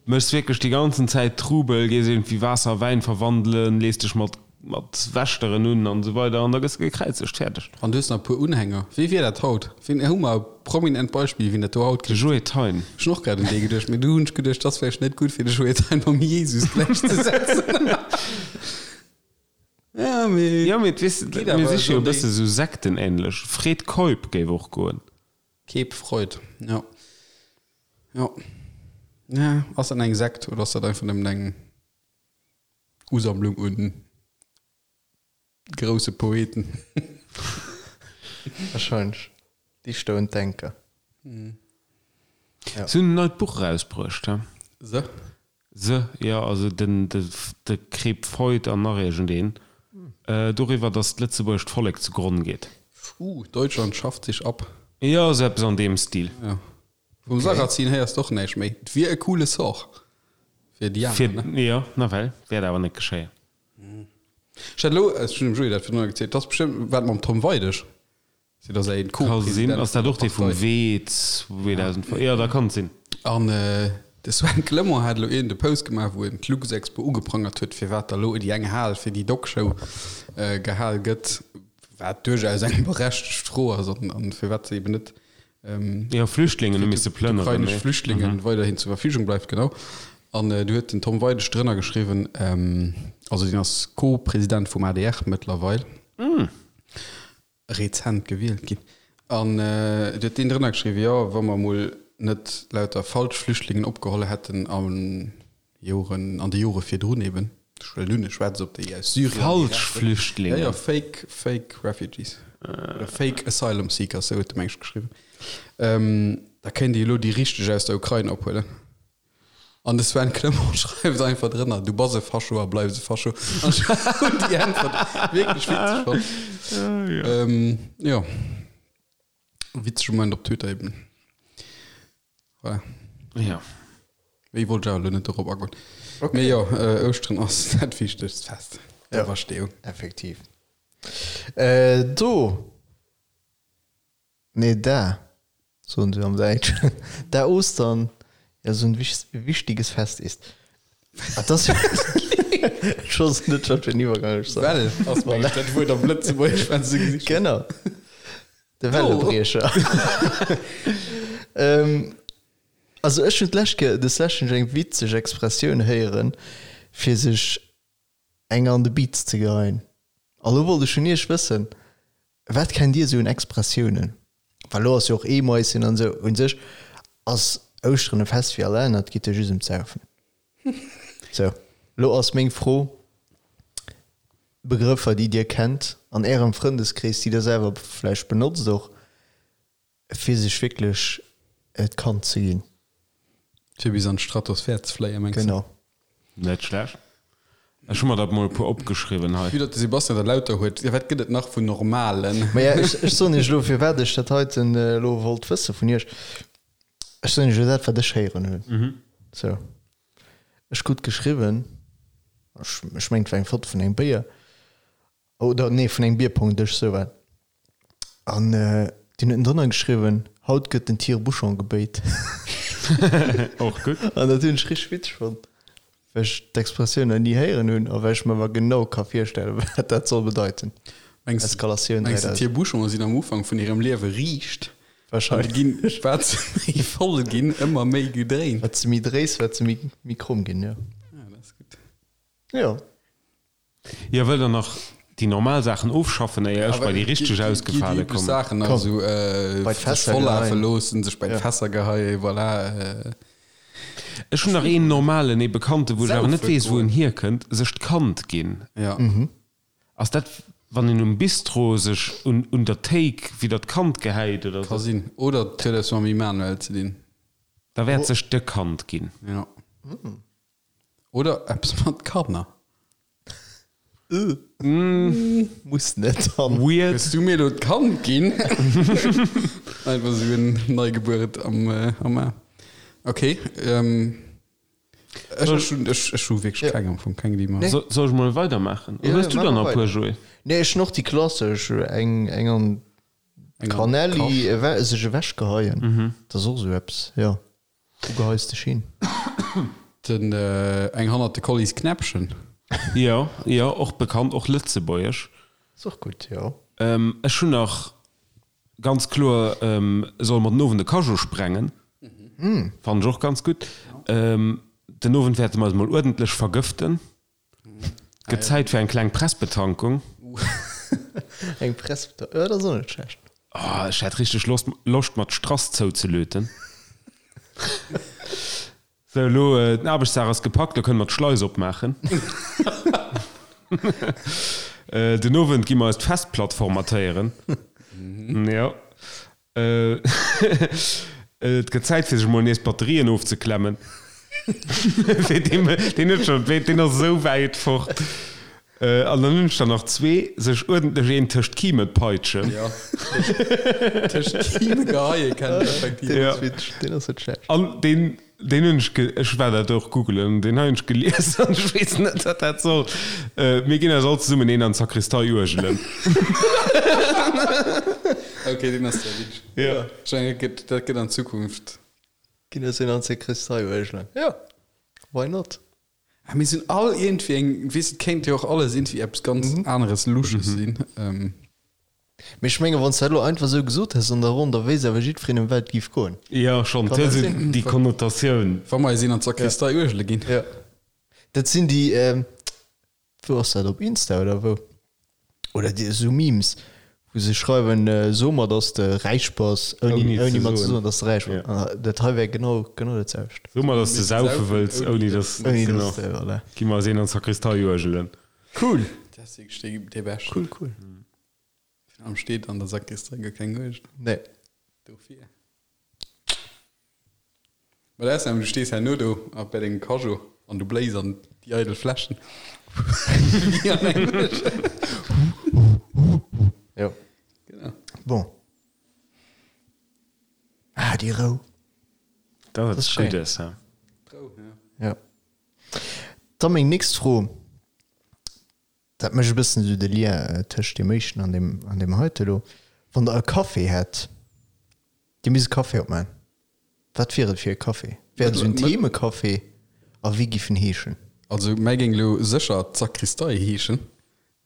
méchs wierklech déi ganzen Zäit Trubel, gees iergendwéi Waasser a Wäin verwandelen, lees dech mat mat Wächteren un an esou weider an da gëss de gekräizegt. Fäerdeg. An du hues nach e puer Unhänger. Wee wier dat haut? Wien, hu mer e prominent Beispill, wien dat do haut De kritt? Joé Thein. Ech hunn och grad un dee geduecht, mee du hunn ech geduecht, dat ass vläicht net gutt, fir de Joé Thein mam Jesus gläichzesetzen. Ja, mee. Jo, mee weess, Geet mir awer si jo e esou bësse sou sektenähnlech. Fred Keup géif och goen. Cape Freud, jo. Jo. Ja, ass dat eng Sekt oder ass dat einfach nëmmen eng Usammlung un grousse Poeten? Wahrscheinlech. Dichter und Denker. Ja. Si hunn en neit Buch erausbruecht, he? Se? Se, jo, also den, de, de Crep Freud an nach iergendeen, doriwwer, datt d'lëtzebuergescht Vollek zu Gronn geet. Uh, Deutschland schafft sich ab. Jo, esou eppes an deem Stil. Ja. Vum Sarrazin héiers de och näischt méi. Et wier e coole Sort fir déi aner, ne? Jo, nawell, wäert awer net geschéien. Ech hat elo, ech hunn dem Joé dat virdrun gezielt, et ass bestëmmt wat mam Tom Weidig, si ass en Ka sinn. Co-President Ass dat vun der och dee vum Partei. Wee 2005? Jo, da kann et sinn. An de Sven Clement hat elo iergend e Post gemaach, wou en d'Luxexpo ugeprangert huet, firwat da elo déi eng Hal fir déi Dog-Show gehal gëtt, wat duerchaus eng berechtegt Fro ass an firwat se eben net Jo, Flüchtlingen hu misse plënneren. Ukrainesch Flüchtlingen weiderhin zur Verfügung bleift, genau. An du huet den Tom Weidig drënner geschriwwen, also deen ass Co-President vum adr mëttlerweil, rezent gewielt ginn, an du huet deen drënner geschriwwen, jo, wa mer emol net lauter falsch Flüchtlingen opgeholl hätten a Joren, an de Jore virdrun eben, ech huelen un, e schwätzt op déi aus Syrien, Falsch Flüchtlingen? Jo, jo, fake, fake refugees oder fake asylum seekers, esou huet de meng ech geschriwwen, da kéint ee elo déi richteg aus der Ukrain ophuelen. An de Sven Clement schreift einfach drënner, Du bass e Fascho a bleifs e Fascho. An ech hunn déi Äntwert wierklech witzeg fonnt. Ähm, jo. Witzege Moment op Twitter eben. Voilà. Ja. Méi wollt ech awer elo net dorop agoen. Okay. Mee jo, äh, Ouschteren ass dat wichtegst Fest. Ja. D'Auferstehung. Effektiv. Äh, do. Nee, da, soen se am Däitschen, da Ostern ja so ein wichtiges Fest ist. Ah, das Ech wosst net, wat fir en Iwwergang ech soll. Well ass mengen ech dat Wuert am Lëtzebuergesch, wat se gesicht hunn. Genau. De Wellebriecher. Also ech hunn d'lescht Kéier, des lescht hunn ech eng witzeg Expressioun héieren, fir sech eng an de Biiz ze geheien. A lo wollt ech vun iech wëssen, Wat kennt Dir esou un Expressiounen? Well elo ass jo och Eemaischen an esou. Un sech ass Ouschteren e Fest wéi all aner, et geet jo just ëm d'Saufen. Sou, elo ass meng Fro, Begrëffer, déi Dir kennt an Ärem Frëndeskrees, déi Der selwer vläicht benotzt och, Fir sech wierklech d'Kand ze ginn. Fir bis an d'Stratosphär ze fléien, mengs de? Genau. Net schlecht. Ech hu mer der mol e puer opgeschriwwen hei. Vue datt de Sebastian der lauter huet, wat gëtt et nach vun normalen? Maja, ech, ech soen iech elo, firwat ech dat heiten elo wollt wësse vun iech. Ech soen iech elo dat, wat ech héieren hunn. Sou. Ech krut geschriwwen, ech, ech mengen, et war eng Foto vun engem Béier, Oder nee, vun engem Bierpongdësch, sou war et. An deen huet drënner geschriwwen, Haut gëtt den Tire-bouchon gebéit. Och gutt. An dat hunn ech richteg witzeg fonnt, well ech d'Expressioun nach ni héieren hunn a well ech mer awer genau ka virstellen, wat dat soll bedeiten. Mengs de, Eskalatioun mengs de 3000. Tire-bouchone sinn am Ufank vun hirem Liewe riicht an Wahrscheinlech. ginn, wat se méi voll ginn, ëmmer méi gedréint? Wat se méi dréis, wat se méi, méi kromm ginn, jo. Ah, dat ass gutt. Jo. Jo, wëllt der nach déi normal Saachen ofschaffen, éier ech bei déi richteg ausgefale kommen? Saachen nach esou Bei sech d'Fässer vollafe geheien. loossen, sech bei d'Fässer geheien, voilà. Ech hunn nach een normalen, ee Bekannten, wou ech awer net Saufe weess, wou en goen. hierkënnt, sech d'Kand ginn. Ja. Ass dat, wann een um Bistro sech un un der Théik widder d'Kand gehäit oder Ka sou? sinn. Oder et huet eppes mam Immanuel ze dinn. Da wäert sech de Kand ginn. Ja. Oder eppes mat Kanner. Muss net dann. Weird. Hues du mir elo d'Kand ginn? Einfach esou en Neigebueret am am Aarm. Ok. Ech ech hunn ech ech hu wierklech keng am Fong, keng déi mer. Soll ech mol weidermaachen? Oder hues du der nach e puer, Joé? Nee, ech hunn och déi klassesch, eng eng an d'Kanelli, sech ewechgeheien. Dat ass och esou eppes, jo. Wou geheis dech hin? Den eng hannert de Collies Knäppchen. Jo, jo, och bekannt, och lëtzebuergesch. Ass och gutt, jo. Ech hunn nach ganz kloer Solle mer den Owend e Cajot sprengen? Fannen ech och ganz gutt. Den Owend wäerte mer eis mol uerdentlech vergëften. Gëtt Zäit fir eng kleng Pressbetankung. Eng Pressbetankung, jo, dat ass och net schlecht. Oh, ech hätt richteg Loscht, Loscht mer d'Strass zouzelöten. Sou, elo, den Aarbechtsdag ass gepackt, elo kënne mer d'Schleis opmaachen. Den Owend gi mer eis d'Festplatt formatéieren. Jo. Et gëtt Zäit fir sech mol nees d'Batterien ofzeklemmen. Deen huet schon, deen ass esou wäit fort. An dann hunn ech der nach zwee, sech uerdentlech een tëscht d'Kime peitschen. Jo, tëscht d'Kime geheie kennt een effektiv. Deen ass witzeg, deen ass net schlecht. An deen Deen hunn ech ge, ech war dat och googelen, deen hei hunn ech gelies an ech weess net, wat dat soll. Mir ginn eis all zesummen een an d'Sakristei uergelen. Ok, deen ass sehr witzeg. Jo. Ech mengen, dat gëtt, dat gëtt an Zukunft. Ginn eis een an d'Sakristei uergelen. Jo, why not? Ah, mir sinn all iergendwéi eng, weess, et kéint jo och alles iergendwéi eppes ganz aneres Lusches sinn. Mee ech mengen, wann s de dat elo einfach esou gesot häss an der Ronn, da wéisst awer jiddwereen, ëm wat et géif goen. Jo, schonn. Kann Et dat huet esou sinn? déi Konnotatioun. Wa mer eis een an d'Sakristei uergele ginn. Jo. Dat sinn déi, wou ass dat, op Insta oder wou? Oder déi esou Memes, wou se schreiwen, So mer, dass de räich bass, ouni, Ouni ouni ze mer ze soen. soen, dass de räich bass. Jo. An dat hei wär genau, genau dat selwecht. So mer, dass de saufe wëlls, ouni dass, Ouni genau. dass de, voilà. Gi mer eis een an d'Sakristei uergelen. Cool! Dat ass wierklech dee, dee Beschten. Cool, cool. Virun allem steet an der Sakristei guer keng Uergel. Nee. Dofir. Mä dat ass nämlech, du stees herno do a bei dengem Cageot an du bléis an déi eidel Fläschen. Wéi an engem Uergel. Jo. Genau. Bon. Ah, déi Rou. Dat ass ass schéin. Guddes, hä? D'Rou, ja. Ja. Da meng nächst Fro, dat mécht e bëssen esou de Lien tëscht deem éischten an deem, an deem heite elo. Wann Der e Café hätt, Dir misst e Café opmaachen, wat wier et fir e Café? Wär et esou en Themecafé a wéi giff en heeschen? Also mäi géing elo sécher d'Sakristei heeschen,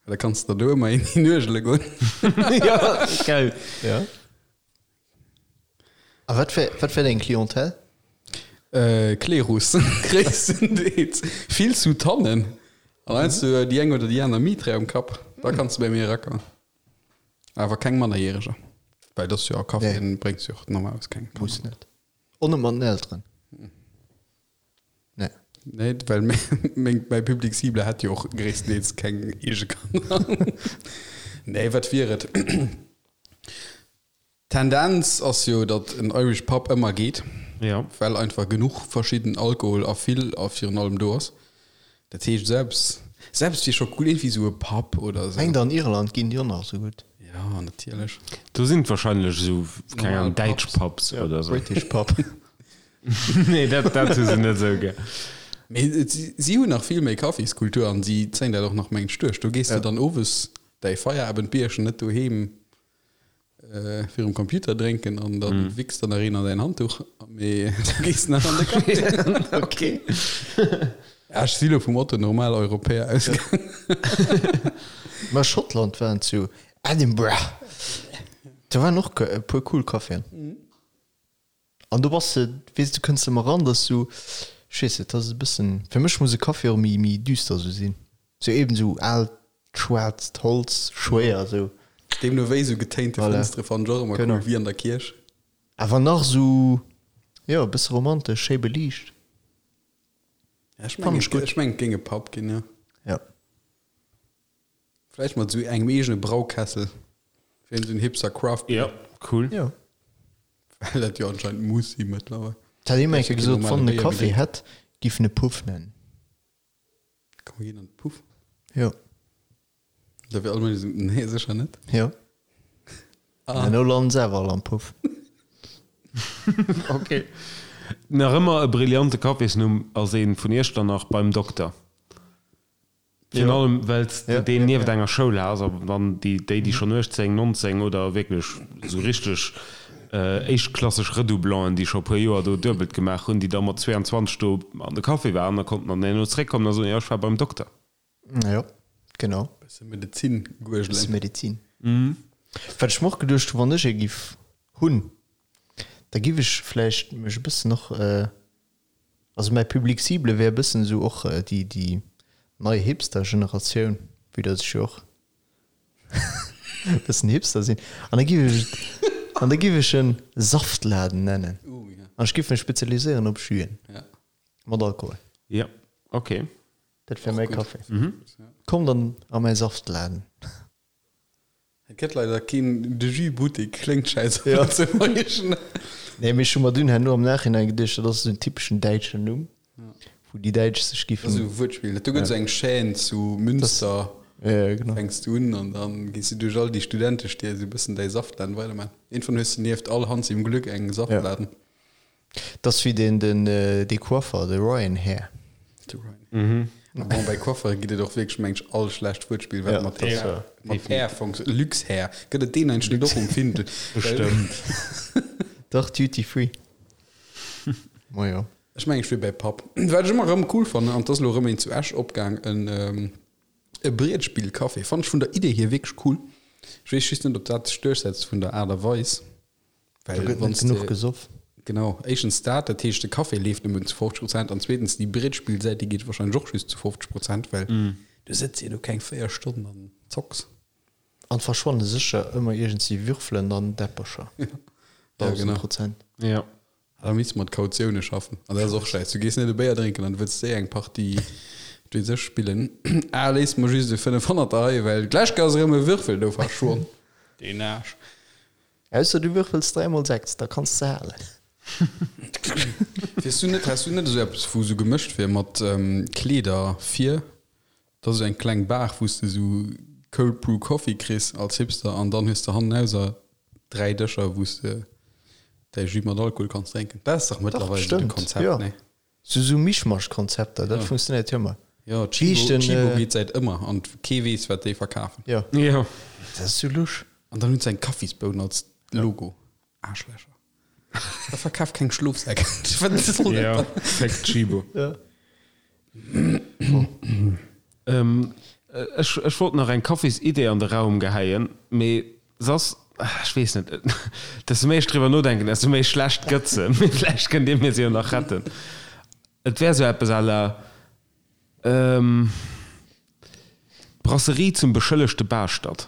well da kanns de der do ëmmer een hinuergele goen. Jo, geil. Ja. A wat wär, wat wär deng Clientèle? Klerus, gréisstendeels. Vill Soutanen an heiansdo déi eng oder déi aner Mitre um Kapp. Da kanns de bei mir erakommen. Awer keng Mannerjäreger, well dat ass jo a Caféen bréngs jo och normalerweis keng Kanner. Muss net. Och net mat den Elteren? Nee. Nee, well meng, mäi Public cible hätt jo och gréisstendeels keng eege Kanner. Nee, wat wier et? D'Tendenz ass jo, datt en Irish Pub ëmmer geet, Ja. well einfach genuch verschidden Alkohol a vill a virun allem do ass. Dat heescht selbst, selbst wier scho cool, iergendwéi esou e Pub oder esou. Mengt an Irland ginn déi och nach esou gutt. Ja, natierlech. Do sinn et wahrscheinlech esou, keng Normal Ahnung, däitsch Pubs. Pubs oder esou. British Pub. Nee, dat, dat hu se net esou gär. Mee et, si, si hunn nach vill méi Kaffiskultur an si zéien dat och nach mengt duerch. Do gees de dann owes däi Feierabendbierchen net doheem Virum Computer drénken an dann wichs der nach een an däin Handtuch, mee du gees nach an de Café. Okay. Ja, ech si lo vum Otto Normal Europäer ausgaangen. Mä Schottland waren zu Edinburgh, do waren och e puer cool Caféen. An do bass de, weess du kënns ëmmer ran, dass du, ech weess net, dat ass e bëssen, fir mech muss e Café och méi méi düster sou sinn, sou eben sou aalt schwaarzt Holz, schwéier sou. Deemno wéi sou getéinte Voilà. Fënstere fannen ech och ëmmer cool, Genau. wéi an der Kierch. Awer nach sou, jo, e bësse romantesch, schéi beliicht. Ja, ech Fannen mengen, ech gutt. ech mengen et géing e Pub ginn, jo. Ja. Vläicht mat esou engem eegene Braukessel fir esou en Hipster Craft Beer. Ja, cool. Ja. Well dat jo anscheinend muss si mëttlerweil. Et hat ee mol eng Kéier gesot, wann en e Béier Café méi hätt, giff en e Puff nennen. Komm mir ginn an de Puff. Jo. Da wier all Mënsch esou, nee sécher net. Jo. Ah. An elo landen se awer all am Puff. Ok. Nach ëmmer e brillante Cafésnumm ass ee vun Iechternach beim Dokter. Virun allem, well s de deen nieft enger Schoul has a wann déi, déi schonn 18, 19 oder wierklech esou richteg éischtklasseg Redoublanten, déi scho e puer Joer do duebelt gemaach hunn, déi da mat 22 do an de Café waren, da konnten dann herno zréckkommen a soen, jo, ech war beim Dokter. Jo, genau. Bësse Medezin guergelen. Bësse Medezin. Wat ech mer och geduecht hunn, wann ech ee giff hunn, da giff ech vläicht mech e bëssen och, Also mäi Public cible wär e bëssen esou och déi déi nei Hipster-Generatioun, vue dass ech jo och e bëssen Hipster sinn. An da giff ech et, an da giff ech en Saftladen nennen. An ech giff mech spezialiséieren op Juen mat Alkohol. Jo, ok. Dat wär mäi Café. Kommt an a mäi Saftladen. Et gëtt leider keen De Jus Buttek, kléngt schäiss op Lëtzebuergesch. Nee, mee ech hu mer dunn herno am Nachhinein geduecht, dat ass esou en typeschen däitschen Numm, wou déi Däitsch sech giffen. Dat ass esou e Wuertspill. Do gëtt esou eng Chaîne zu Münster, Ja, ja, genau. fänks du un an dann gees du duerch all déi Studentestied esou e bëssen däi Saftladen weiderman. Iergendwann hues du nieft all Hans im Glück eng Saftladen. Dat ass wéi den, den, dee Coiffer, de Ryan Hair. De Ryan. A bon, bei Coiffere gëtt et och wierklech, meng ech, all schlecht Wuertspill, wat Ja, mat dat Hair, war. mat Hair funktio-, Luxhair, gëtt et deen eigentlech net och um Findel? Bestëmmt. Dach, Duty Free. Majo. Ech mengen, ech wier bäi Papp. Wat ech ëmmer erëm cool fannen, an 't ass elo erëm een zu Esch opgaang, en, e Brietspillcafé, fannen ech vun der Idee hier wierklech cool. Ech weess just net, ob dat sech duerchsetzt vun der Aart a Weis. Well Do gëtt net genuch gesoff. Genau, éischtens dat, dat heescht de Café leeft nëmmen zu 50 Prozent an zweetens déi Brettspillsäit, déi geet wahrscheinlech och just zu 50 Prozent, well du sëtz jo do keng 4 Stonnen an zocks. An verschwanne sécher ëmmer iergendsi Würfelen an Däppercher. Ja, genau. Prozent. Ja. Da misst mat Kautioune schaffen. An dat ass och schäiss. Du gees net e Béier drénken an du wëlls séier eng Partie, wat weess ech, spillen. Ah, léiss mer just e 500er hei, well d'lescht Kéier ass erëm e Würfel do verschwonn. Deen Aarsch. Ausser du würfels 3 mol 6, da kanns de halen. Wiers du net, häss du net esou eppes wou esou gemëscht wier mat Kleeder vir? Dat ass esou eng kleng Bar wou s de esou Cold Brew Coffee kriss als Hipster an dann hues de hannenauser 3 Dëscher wou s de däi Jus mat Alkohol kanns drénken. Dat ass dach mëttlerweil esou de Konzept, jo. nee? Sou sou Mischmasch-Konzepter, dat funktionéiert jo ëmmer. Jo, Tchibo, Tchibo geet säit ëmmer an kee weess wat déi verkafen. Jo. Jo. Dat ass sou lusch. An dann hunn se eng Kaffisboun als Logo. Aarschlächer. Da verkaf keng Schlofsäck. Wat soll dat Jo, dann? Fick Tchibo. Jo. Ech, ech wollt nach eng Kaffisidee an de Raum gehäien, mee Soss, ech weess net, desto méi ech driwwer nodenken, desto méi schlecht gëtt se. Mee vläicht kënnt Dir mir se jo nach retten. Et wär esou eppes à la Brasserie zum beschëllegte Baaschtert.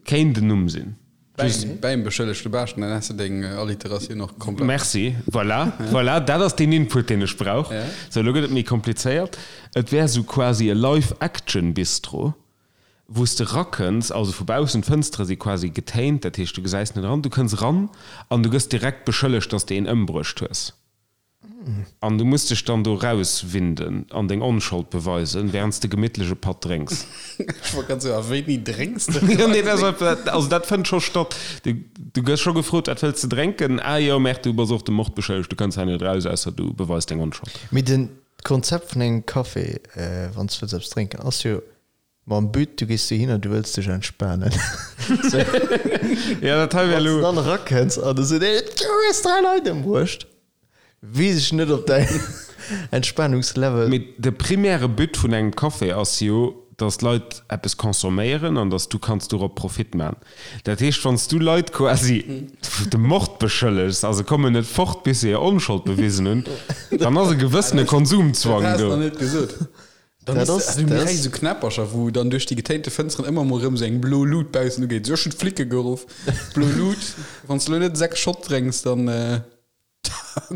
Kéint en Numm sinn. Bäim, bäim beschëllegte Baaschtert, dann häss de deng Alliteratioun och komplett. Merci. Voilà, voilà, dat ass deen Input, deen ech brauch. Sou, elo gëtt et méi komplizéiert. Et wär esou quasi e Live-Action-Bistro. wou s de rakënns, also vu baussen, d'Fënstere si quasi getéint, dat heescht du gesäis net eran, du kënns eran an du gëss direkt beschëllegt, dass de een ëmbruecht hues an du muss dech dann do rauswinden an deng Onschold beweisen, wärend s de gemittlech e Patt drénks. Ech wollt grad soen, a wéini drénks de? Jo, nee, dat ass, also dat fënnt scho statt. Du, du gëss scho gefrot, wat wëlls de drénken? Ah jo, merk, du bass och de Mord beschëllegt, du kënns hei net raus, ausser du beweis deng Onschold. Mee den D'Konzept vun engem Café, wann s du wëlls eppes drénken, ass jo mam But, du gees dohinner, du wëlls dech entspanen. Jo, dat hei wär Wann s elo. du dann erakënns an du seet een, du hues 3 Leit ëmbruecht, weess ech net, ob däin Entspanungslevel. Mee de primäre But vun engem Café ass jo, dass d'Leit eppes consomméieren an dass du kanns dorop Profit man. Dat heescht, wann s du Leit quasi dem Mord beschëllegs a se kommen net fort, bis se hir Onschold bewisen hunn, dann ass e gewëssene Konsumzwang Dat has do. de nach net gesot. Dann Dat is, ass- also mir dat kréie ass- sou Knäppercher, wou dann duerch déi getéinte Fënsteren ëmmer mol erëm sou eng blo Lut baussen ugeet. Sou, ech hunn d'Flicke geruff. Blo Lut, wann s de elo net 6 Schott drénks, dann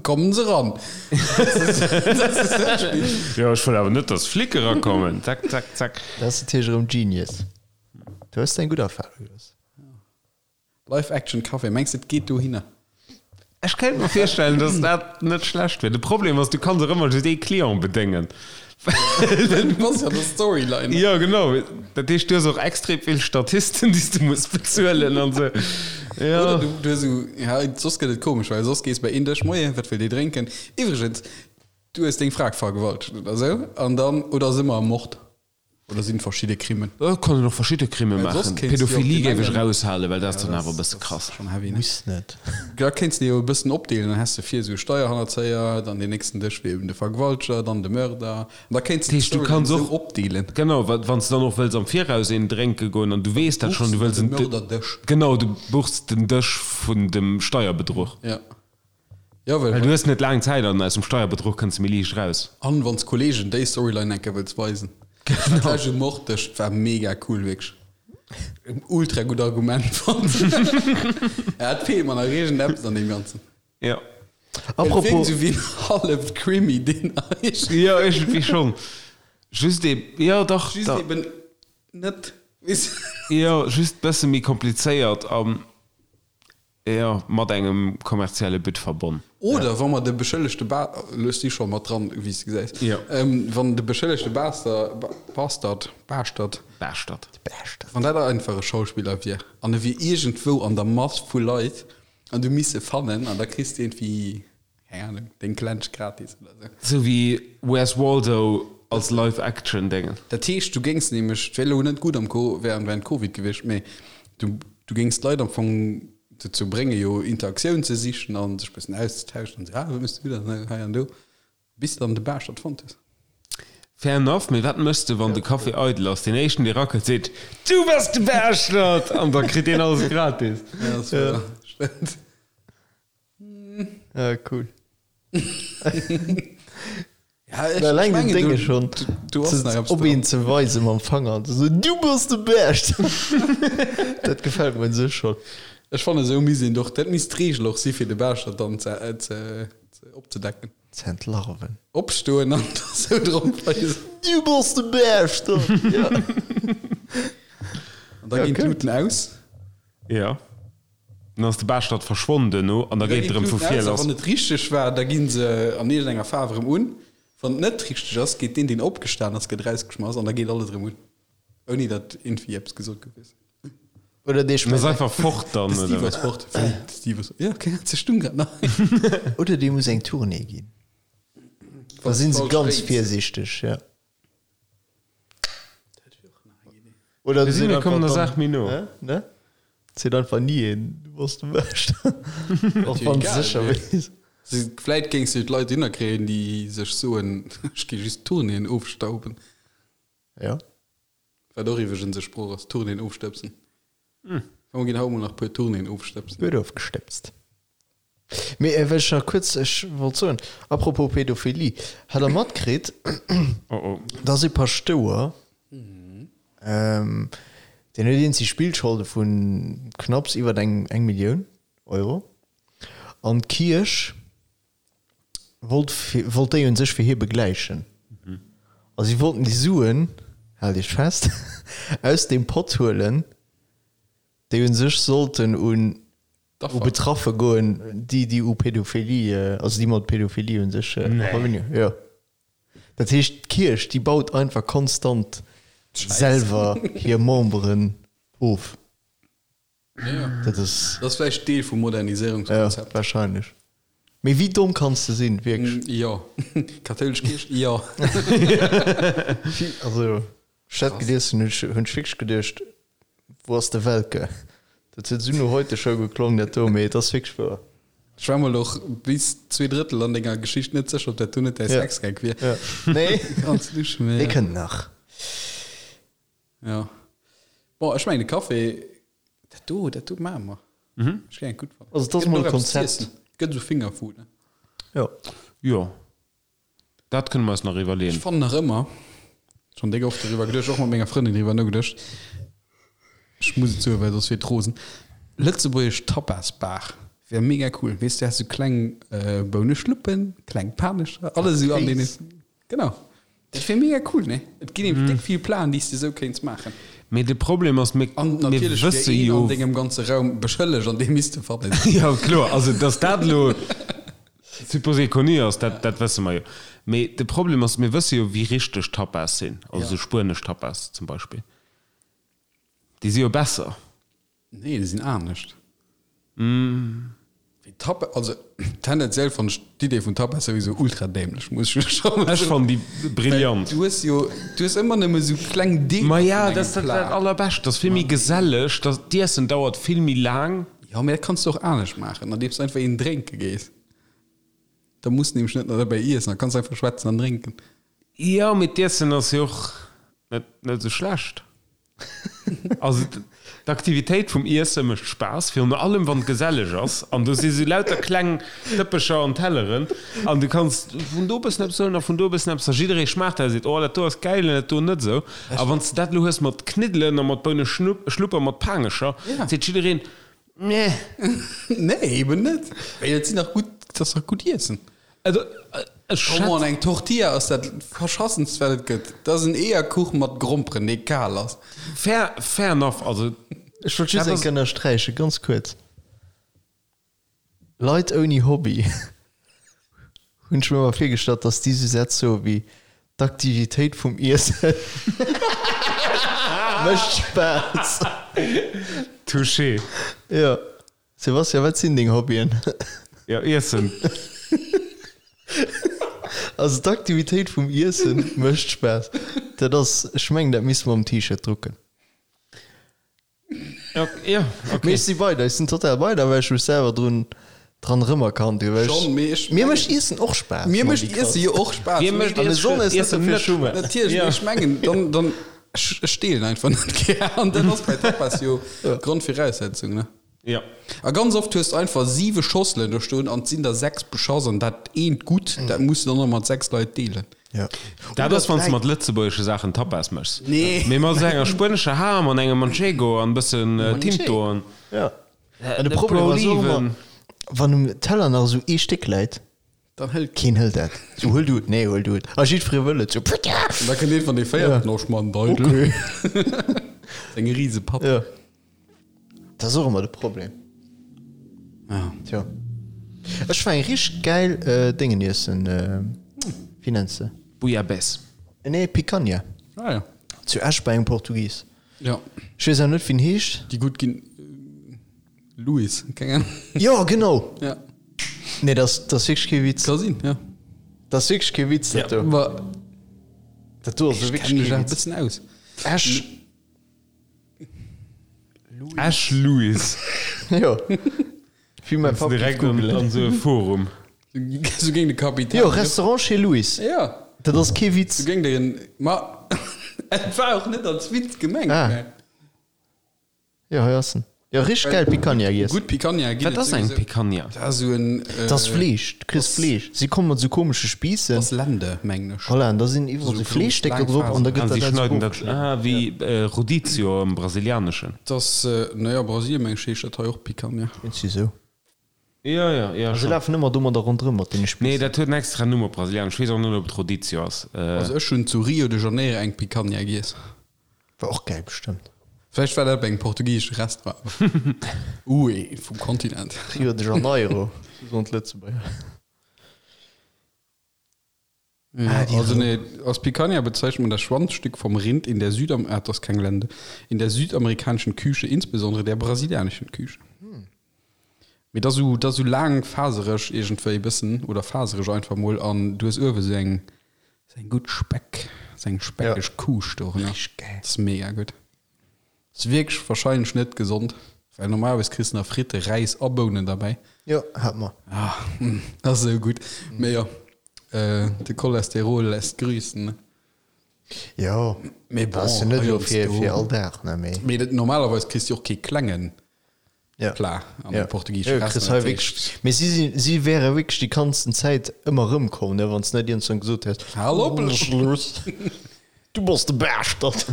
kommen se ran. Dat ass dat Spill. Jo, ech wëll awer net, dass Flicke erakommen. Zack, zack, zack. Dat ass natierlech erëm genius. Du hues eng gutt Erfarung gelooss. Live Action Café, mengs de et geet dohinner? Ech kéint mer virstellen, dass dat net schlecht wier. De Problem ass, du kanns och ëmmer just ee Client bedéngen. Du bass jo an der Storyline. Jo, genau. Dat heescht, du hues och extrem vill Statisten, déi s du muss bezuelen an esou. Jo. Oder du, du hues esou, ja, soss gëtt et komesch, well soss gees bei een Dësch, Moien, wat wëllt Dir drénken? Iwwregens, du hues deng Fra vergewaltegt oder esou, an dann, oder si mer am Mord? Oder sinn verschidde Crimen? Et kann een och verschidde Crime Well soss maachen. kéints du jo Pädophilie géif ech gemengen. eraushalen, well dat ass Ja, dann dat awer e ass, bësse dat ass krass. schonn heavy, ne? Muss net. Da kéints de jo e bëssen opdeelen, dann häss de vir esou Steierhannerzéier, dann deen nächsten Dësch wier eben de Vergewalteger, dann de Mörder. An da kéints Dat de heescht, du d'Storyline kanns esou och, opdeelen. genau, wa wann s de dann och wëlls am Viraus een drénke goen an du weess Dann dat schonn, buchs du de wëlls de en, Mörderdësch. genau, du buchs den Dësch vun dem Steierbedruch. Ja. Ja, well. Well du hues net laang Zäit an aus dem Steierbedruch kënns de méi liicht raus. An wanns Kollegen déi Storyline enke wëlls weisen. Genau. Dat leschte Morddësch war mega cool, wierklech. En ultra gutt Argument fonnt. Ja, et feelt mer nach iergendeppes an deem Ganzen. Ja. Et wierkt Apropos, esou wéi en halleft Krimi, deen eigentlech. Jo, iergendwéi schonn. Just ee, jo dach, Just da. eben net, weess. Jo, just bësse méi komplizéiert an. Jo, mat engem kommerzielle But verbonn. Oder wa mer de beschëllegte Ba, elo si scho mat dran, wéi s de gesäis, Jo. wann de beschëllegte Baster, Bastard, Baaschtert, Baaschtert. Baaschtert. wann dat einfach e Schauspiller wier an e wier iergendwou an der Mass vu Leit an du misst e fannen an da kriss de iergendwéi Keng Ahnung, deng Klensch gratis oder sou. Sou wéi Where's Waldo als Live-Action-Déngen. Dat heescht, du géings nämlech, et wär elo net gutt am Co während während Covid gewiescht, mee du du géings d'Leit am Fong dozou bréngen, jo Interaktioun ze sichen a sech bëssen auszetauschen an sou, ah, wat méchs du dann hei an do, bis de dann de Baaschtert fonnt hues. Fair enough, mee wat méchs de, wann de Café eidel ass? Deen éischten, dee rakelt, seet, Du bass de Baaschtert! An da kritt deen alles gratis. Ja, dat wär, stëmmt. Ja, cool. Ja, ech, Alleng ech den mengen, Dénge du, schon du ass nach eppes op dran. een ze weisen mam Fanger an ze soen, Du bass de Bescht! Dat gefält mer un sech schon. Ech fannen, esou misst een doch, dat misst d'Reegel och si fir de Baaschtert dann ze, ze, ze opzedecken. Ze entlarven. Opstoen an da sou drop weisen. Du bass de Bescht! Ja. An da Ja, ginn gutt. d'Luten aus. Ja. Dann ass de Baaschtert verschwonn duerno an da geet et erëm vu vir lass. Wann et richteg war, da gi se an iergendenger Faarf erëm un. Wann et net richteg ass, geet deen, deen opgestan ass, gëtt erausgeschmass an da geet alles erëm un. Ouni datt iergendwéi eppes gesot gouf, weess de. Oder dee En ass schmëtt einfach fort dann, De Steve oder ass wat? fort. Wéi? De Steve ass. Jo, okay, ze stung grad nach. Oder dee muss eng Tournée ginn. Da sinn se ganz virsiichteg, ja. Oder Mir sinn, mir kommen der dann, Saach méi no. Ne? Ne? Seet einfach ni een, du bass de Bescht. Och wann du sécher weess. Vläit géings du d'Leit dohinner kréien, déi sech soen, ech gi just Tournéeën ofstauben. Ja. Wat och iwweregens e Sproch ass, Tournéeën ofstëbsen. Komm, mir ginn haut mol nach e puer Tournéeën ofstëbsen. Gutt ofgestëbst. Mee wat ech nach kuerz, ech wollt soen, apropos Pädophilie, hat der matkritt, Oh oh. dass ee Paschtouer, deen huet eenzeg Spillscholde vu knapps iwwer eng eng Millioun Euro, an d'Kierch wollt fir, wollt déi un sech fir hie begläichen. A si wollten déi Suen, haalt iech fest, aus deem Pott huelen, déi un sech sollten un u Betraffe goen, déi, déi u Pädophilie, also déi mat Pädophilie un sech a Verbindung, jo. Dat heescht, d'Kierch, déi baut einfach konstant selwer hir Memberen of. Ja. Dat ass. Dat ass vläicht Deel vum Moderniséierungskonzept. Ja, wahrscheinlech. Mee wéi domm kanns de sinn, wierklech? Jo. Kathoulesch Kierch, jo. Also, ech dat gelies hunn, hunn ech wierklech geduecht, wou ass de Welke? Dat huet esou no Heute-Show geklongen, dat do, mee et ass wierklech wouer. Ech war mol och bis 2 Drëttel an denger Geschicht net sécher, ob dat do net däi Sexgag wier. Ja. Nee. Ganz lusch, mee. Dee kënnt nach. Ja. Bon, ech mengen de Café, dat do, dat do maache mer. Mhm. Ech géing et gutt fannen. Also, dat ass mol e Konzept. Gëtt esou Fingerfood, ne? Jo. Jo. Dat kënne mer eis nach iwwerleeën. Ech fannen nach ëmmer, schonn déck oft doriwwer geduecht, och mat menger Frëndin driwwer nogeduecht, ech muss et soen, well soss wier et rosen, lëtzebuergesch Tapasbar wär mega cool. Weess du, häss esou kleng Bouneschluppen, kleng Panescher, alles esou an deene. Genau. Dat wier mega cool, ne? Et ginn nämlech déck vill Planen, déi s de esou kéints maachen. Mee de Problem ass, mir An natierlech wier wësse een jo. an dengem ganze Raum beschëllegt an dee misst e fannen. Jo, kloer. Also, datt dat elo supposé connu ass, dat, dat wësse mer jo. Mee de Problem ass, mir wësse jo, wéi richteg Tapas sinn, also esou spuenesch Tapas zum Beispill. Déi si jo besser. Nee, déi sinn anescht. Wéi Tapa, also tendenziell fannen ech d'Idee vun Tapas souwisou ultra dämlech, muss ech scho mol Ech soen. fannen déi Well brillant. du hues jo, du hues ëmmer nëmme sou kleng Deeler Ma ja, vun dat engem ass dat Plat. allerbescht. Dat ass vill méi geselleg, dat d'Iessen dauert vill méi laang. Jo, mee dat kanns du och anescht maachen, andeems du einfach een drénke gees. Da muss de nämlech net nach derbäi iessen, da kanns du einfach schwätzen an drénken. Jo, mee d'Iessen ass jo och net net esou schlecht. Also d'Aktivitéit vum Iesse mécht Spaass, virun allem wann et geselleg ass an do si sou lauter kleng Dëppecher an Telleren an du kanns vun do e bëssen eppes huelen a vun do e bëssen eppes a jidderee schmaacht dat a seet, oh dat do ass gäil an dat do net esou. A wann s de dat elo hues mat Kniddelen a mat Bouneschlupp a mat Paangecher, seet jiddereen, Nee. Nee, eben net. Well et sinn dach gutt, et ass dach gutt Iessen. Also, ech Come on, schätz. eng Tortilla ass dat verschassenst wat et gëtt. Dat ass en Eeërkuch mat Gromperen, dee kal ass. Fair, fair enough, also. Ech wollt just Dat eng ass. Kéier ënnersträichen, ganz kuerz, Leit ouni Hobby hunn ech mir ëmmer virgestallt, dass déi sou Sätz soe wéi, D'Aktivitéit vum Iessen mécht Spaass. Touché. Jo. Sebastian, wat sinn deng Hobbyen? Jo, Iessen. Also d'Aktivitéit vum Iessen mécht Spaass. Dat ass, ech mengen, dat misste mer um T-Shirt drucken. Ja, ja, okay. Mee ech si bei der, ech sinn total bei der, well ech mech selwer drun. Dran erëmerkannt hu well Schon, mee ech mir mécht Iessen och Spaass. Mir mécht Iesse jo och Spaass. Mir mécht An besonnesch Iessen net net Schummer. Natierlech, mee ech mengen, dann, dann, ech, ech deelen einfach net gär. An dat ass bei Tapas jo Grondviraussetzung, ne? Ja. A ganz oft hues de einfach siwe Schosselen do stoen an et sinn der sechs beschass an dat eent gutt, dat muss de dann och mat sechs Leit deelen. Ja. Dat ass, wann s de mat lëtzebuergesche Saachen Tapas méchs. Nee. Mee mat esou enger spuenescher Ham an engem Manchego an e bëssen Tinto an. Ja. An de Problem ass och ëmmer, wann um Teller nach esou ee Stéck läit, Dann hëlt keen hëlt dat. Sou, huel du et, nee, huel du et. A jiddweree wëll et, sou, Putta! An da kënnt een van dee véierten, oh, ech man Deidel. Okay. Seng rise Papp. Ja. Dat ass och ëmmer de Problem. Ja. Tjo. Ech war eng richteg gäil Déngen iessen, wéi nenns de? Bouillabaisse. Nee, Picanha. Ah ja. Zu Esch bei engem Portugis. Ja. Ech weess awer net, wéi en heescht. Déi gutt ginn. Louis, keng Ahnung. Jo, genau. Ja. Nee, dat ass, dat ass wierklech kee Witz. Ka sinn, ja. Dat ass wierklech kee Witz, dat do. Ma Dat do ass ech wierklech kenne mech kee awer e Witz. bëssen aus. Esch. Esch Louis. Jo. Wéi mäi Papp géif Direkt an, googelen. an esou e Forum. Sou géing de Kapitän. Jo, Restaurant chez Louis. Ja. Dat ass kee Witz. Sou géing de. Ma et war och net als Witz gemengt. Ah. Mä. Jo, hei ass en. Jo, richteg gäil Picanha giess. Gutt Picanha ginn Wat ass eng Picanha? Dat ass esou en. Dat ass Fleesch. Du kriss Fleesch. Si komme mat esou komesche Spiissen. Dat ass Lende, mengen ech. Voilà, an da sinn iwwerall Esou esou Fleeschstécker grouss, drop laang an da gëtt Ah, si dat alles schneiden dat. ofgeschnidden. Ah, wéi Rodizio am Brasilianeschen. Dat ass, naja, Brasilien, mengen ech, heescht dat hei och Picanha. Iergendwéi esou. Jo, jo, jo, Se schon. lafen ëmmer domadder ronderëm mat deene Nee, Spiissen. dat huet en extra Numm op Brasilianesch. Ech weess och net, ob et Rodizio ass. Also ech hunn zu Rio de Janeiro eng Picanha giess. War och gäil bestëmmt. Vläicht war dat bei engem portugiesesche Restaurant. Ui, vum Kontinent. Rio de Janeiro, sou soen d'Lëtzebuerger. Ja, Ah, die also nee, als Picanha bezeichnet man das Schwanzstück vom Rind in der Südam ah, das ist kein Gelände, in der südamerikanischen Küche, insbesondere der brasilianischen Küche. Hm. Mee dat sou, dat sou laang fasereg iergendwéi bëssen oder fasereg einfach mol an du hues uewe sou eng, sou eng gutt Speck, sou eng speckeg Ja. Kuuscht dorënner. Richteg gäil. Dat ass mega gutt. Ass wierklech wahrscheinlech net gesond, well normalerweis kriss de nach Fritte, Räis a Bounen derbäi. Jo, hat mer. Ah, dat ass esou gutt. Mee jo, de Cholesterol lässt grüßen, ne? Jo, Mee bon, dat ass jo net elo fir, heiansdo. fir all Dag, ne, mee. Mee dat, normalerweis kriss de och kee klengen Ja. Plat an Ja. engem portugiesesche Jo, kriss Restaurant. hei wierklech, mee si sinn, si wäre wierklech déi ganzen Zäit ëmmer erëmkomm, ne, wann s net iergendwann gesot häss, Hal op, Schluss. Du bass de Baaschtert.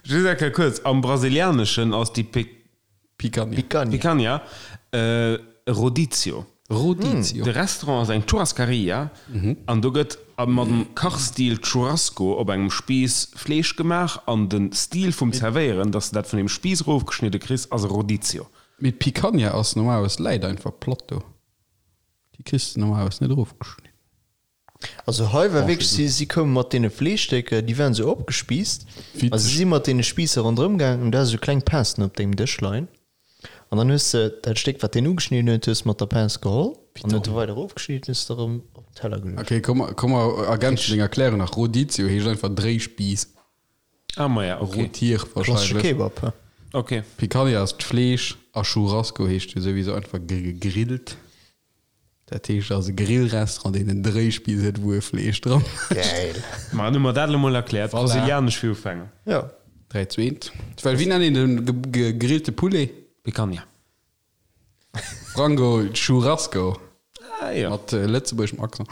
Just eng Kéier kuerz, am Brasilianeschen ass déi Pic. Picanha. Picanha. Picanha, e Rodizio. Rodizio. De Restaurant ass eng Churrascaria an do gëtt mat dem Kachstil Churrasco op engem Spiiss Fleesch gemaach an de Stil vum Zerwéieren, dass de dat vun deem Spiiss erofgeschnidde kriss, ass e Rodizio. Mee d'Picanha ass normalerweis läit einfach platt do. Déi kriss de normalerweis net erofgeschnidden. Also hei war wierklech, si, si koume mat deene Fleeschstécker, déi waren esou opgespiisst a si si mat deene Spiisser ronderëm gaangen an du has esou kleng Pincen op dengem Dësch leien an dann hues de dat Stéck, wat deen ugeschnidden huet, hues mat der Pince geholl an huet e weider erofgeschnidden, hues de erëm op den Teller geluecht. Okay, komm, komm mer ergänzen deng Erklärung nach. Rodizio heescht einfach Dréispiiss. Ah, maja, okay. Rotier Klassesche wahrscheinlech. Kebab, hä? Okay. Picanha ass d'Fleesch a Churrasco heescht jo souwisou einfach gegrillt. Dat heescht ass e Grillrestaurant deen en Dréispiiss huet wou e Fleesch dran ass. Gäil. Ma dann hu mer dat elo mol erkläert. Voilà. Brasilianesch fir Ufänger. Ja. 3, 2, 1. Well wéi nennt een de gegrillte Poulet? Picanha. Frango Churrasco. Ah jo. Mat lëtzebuergeschem Accent.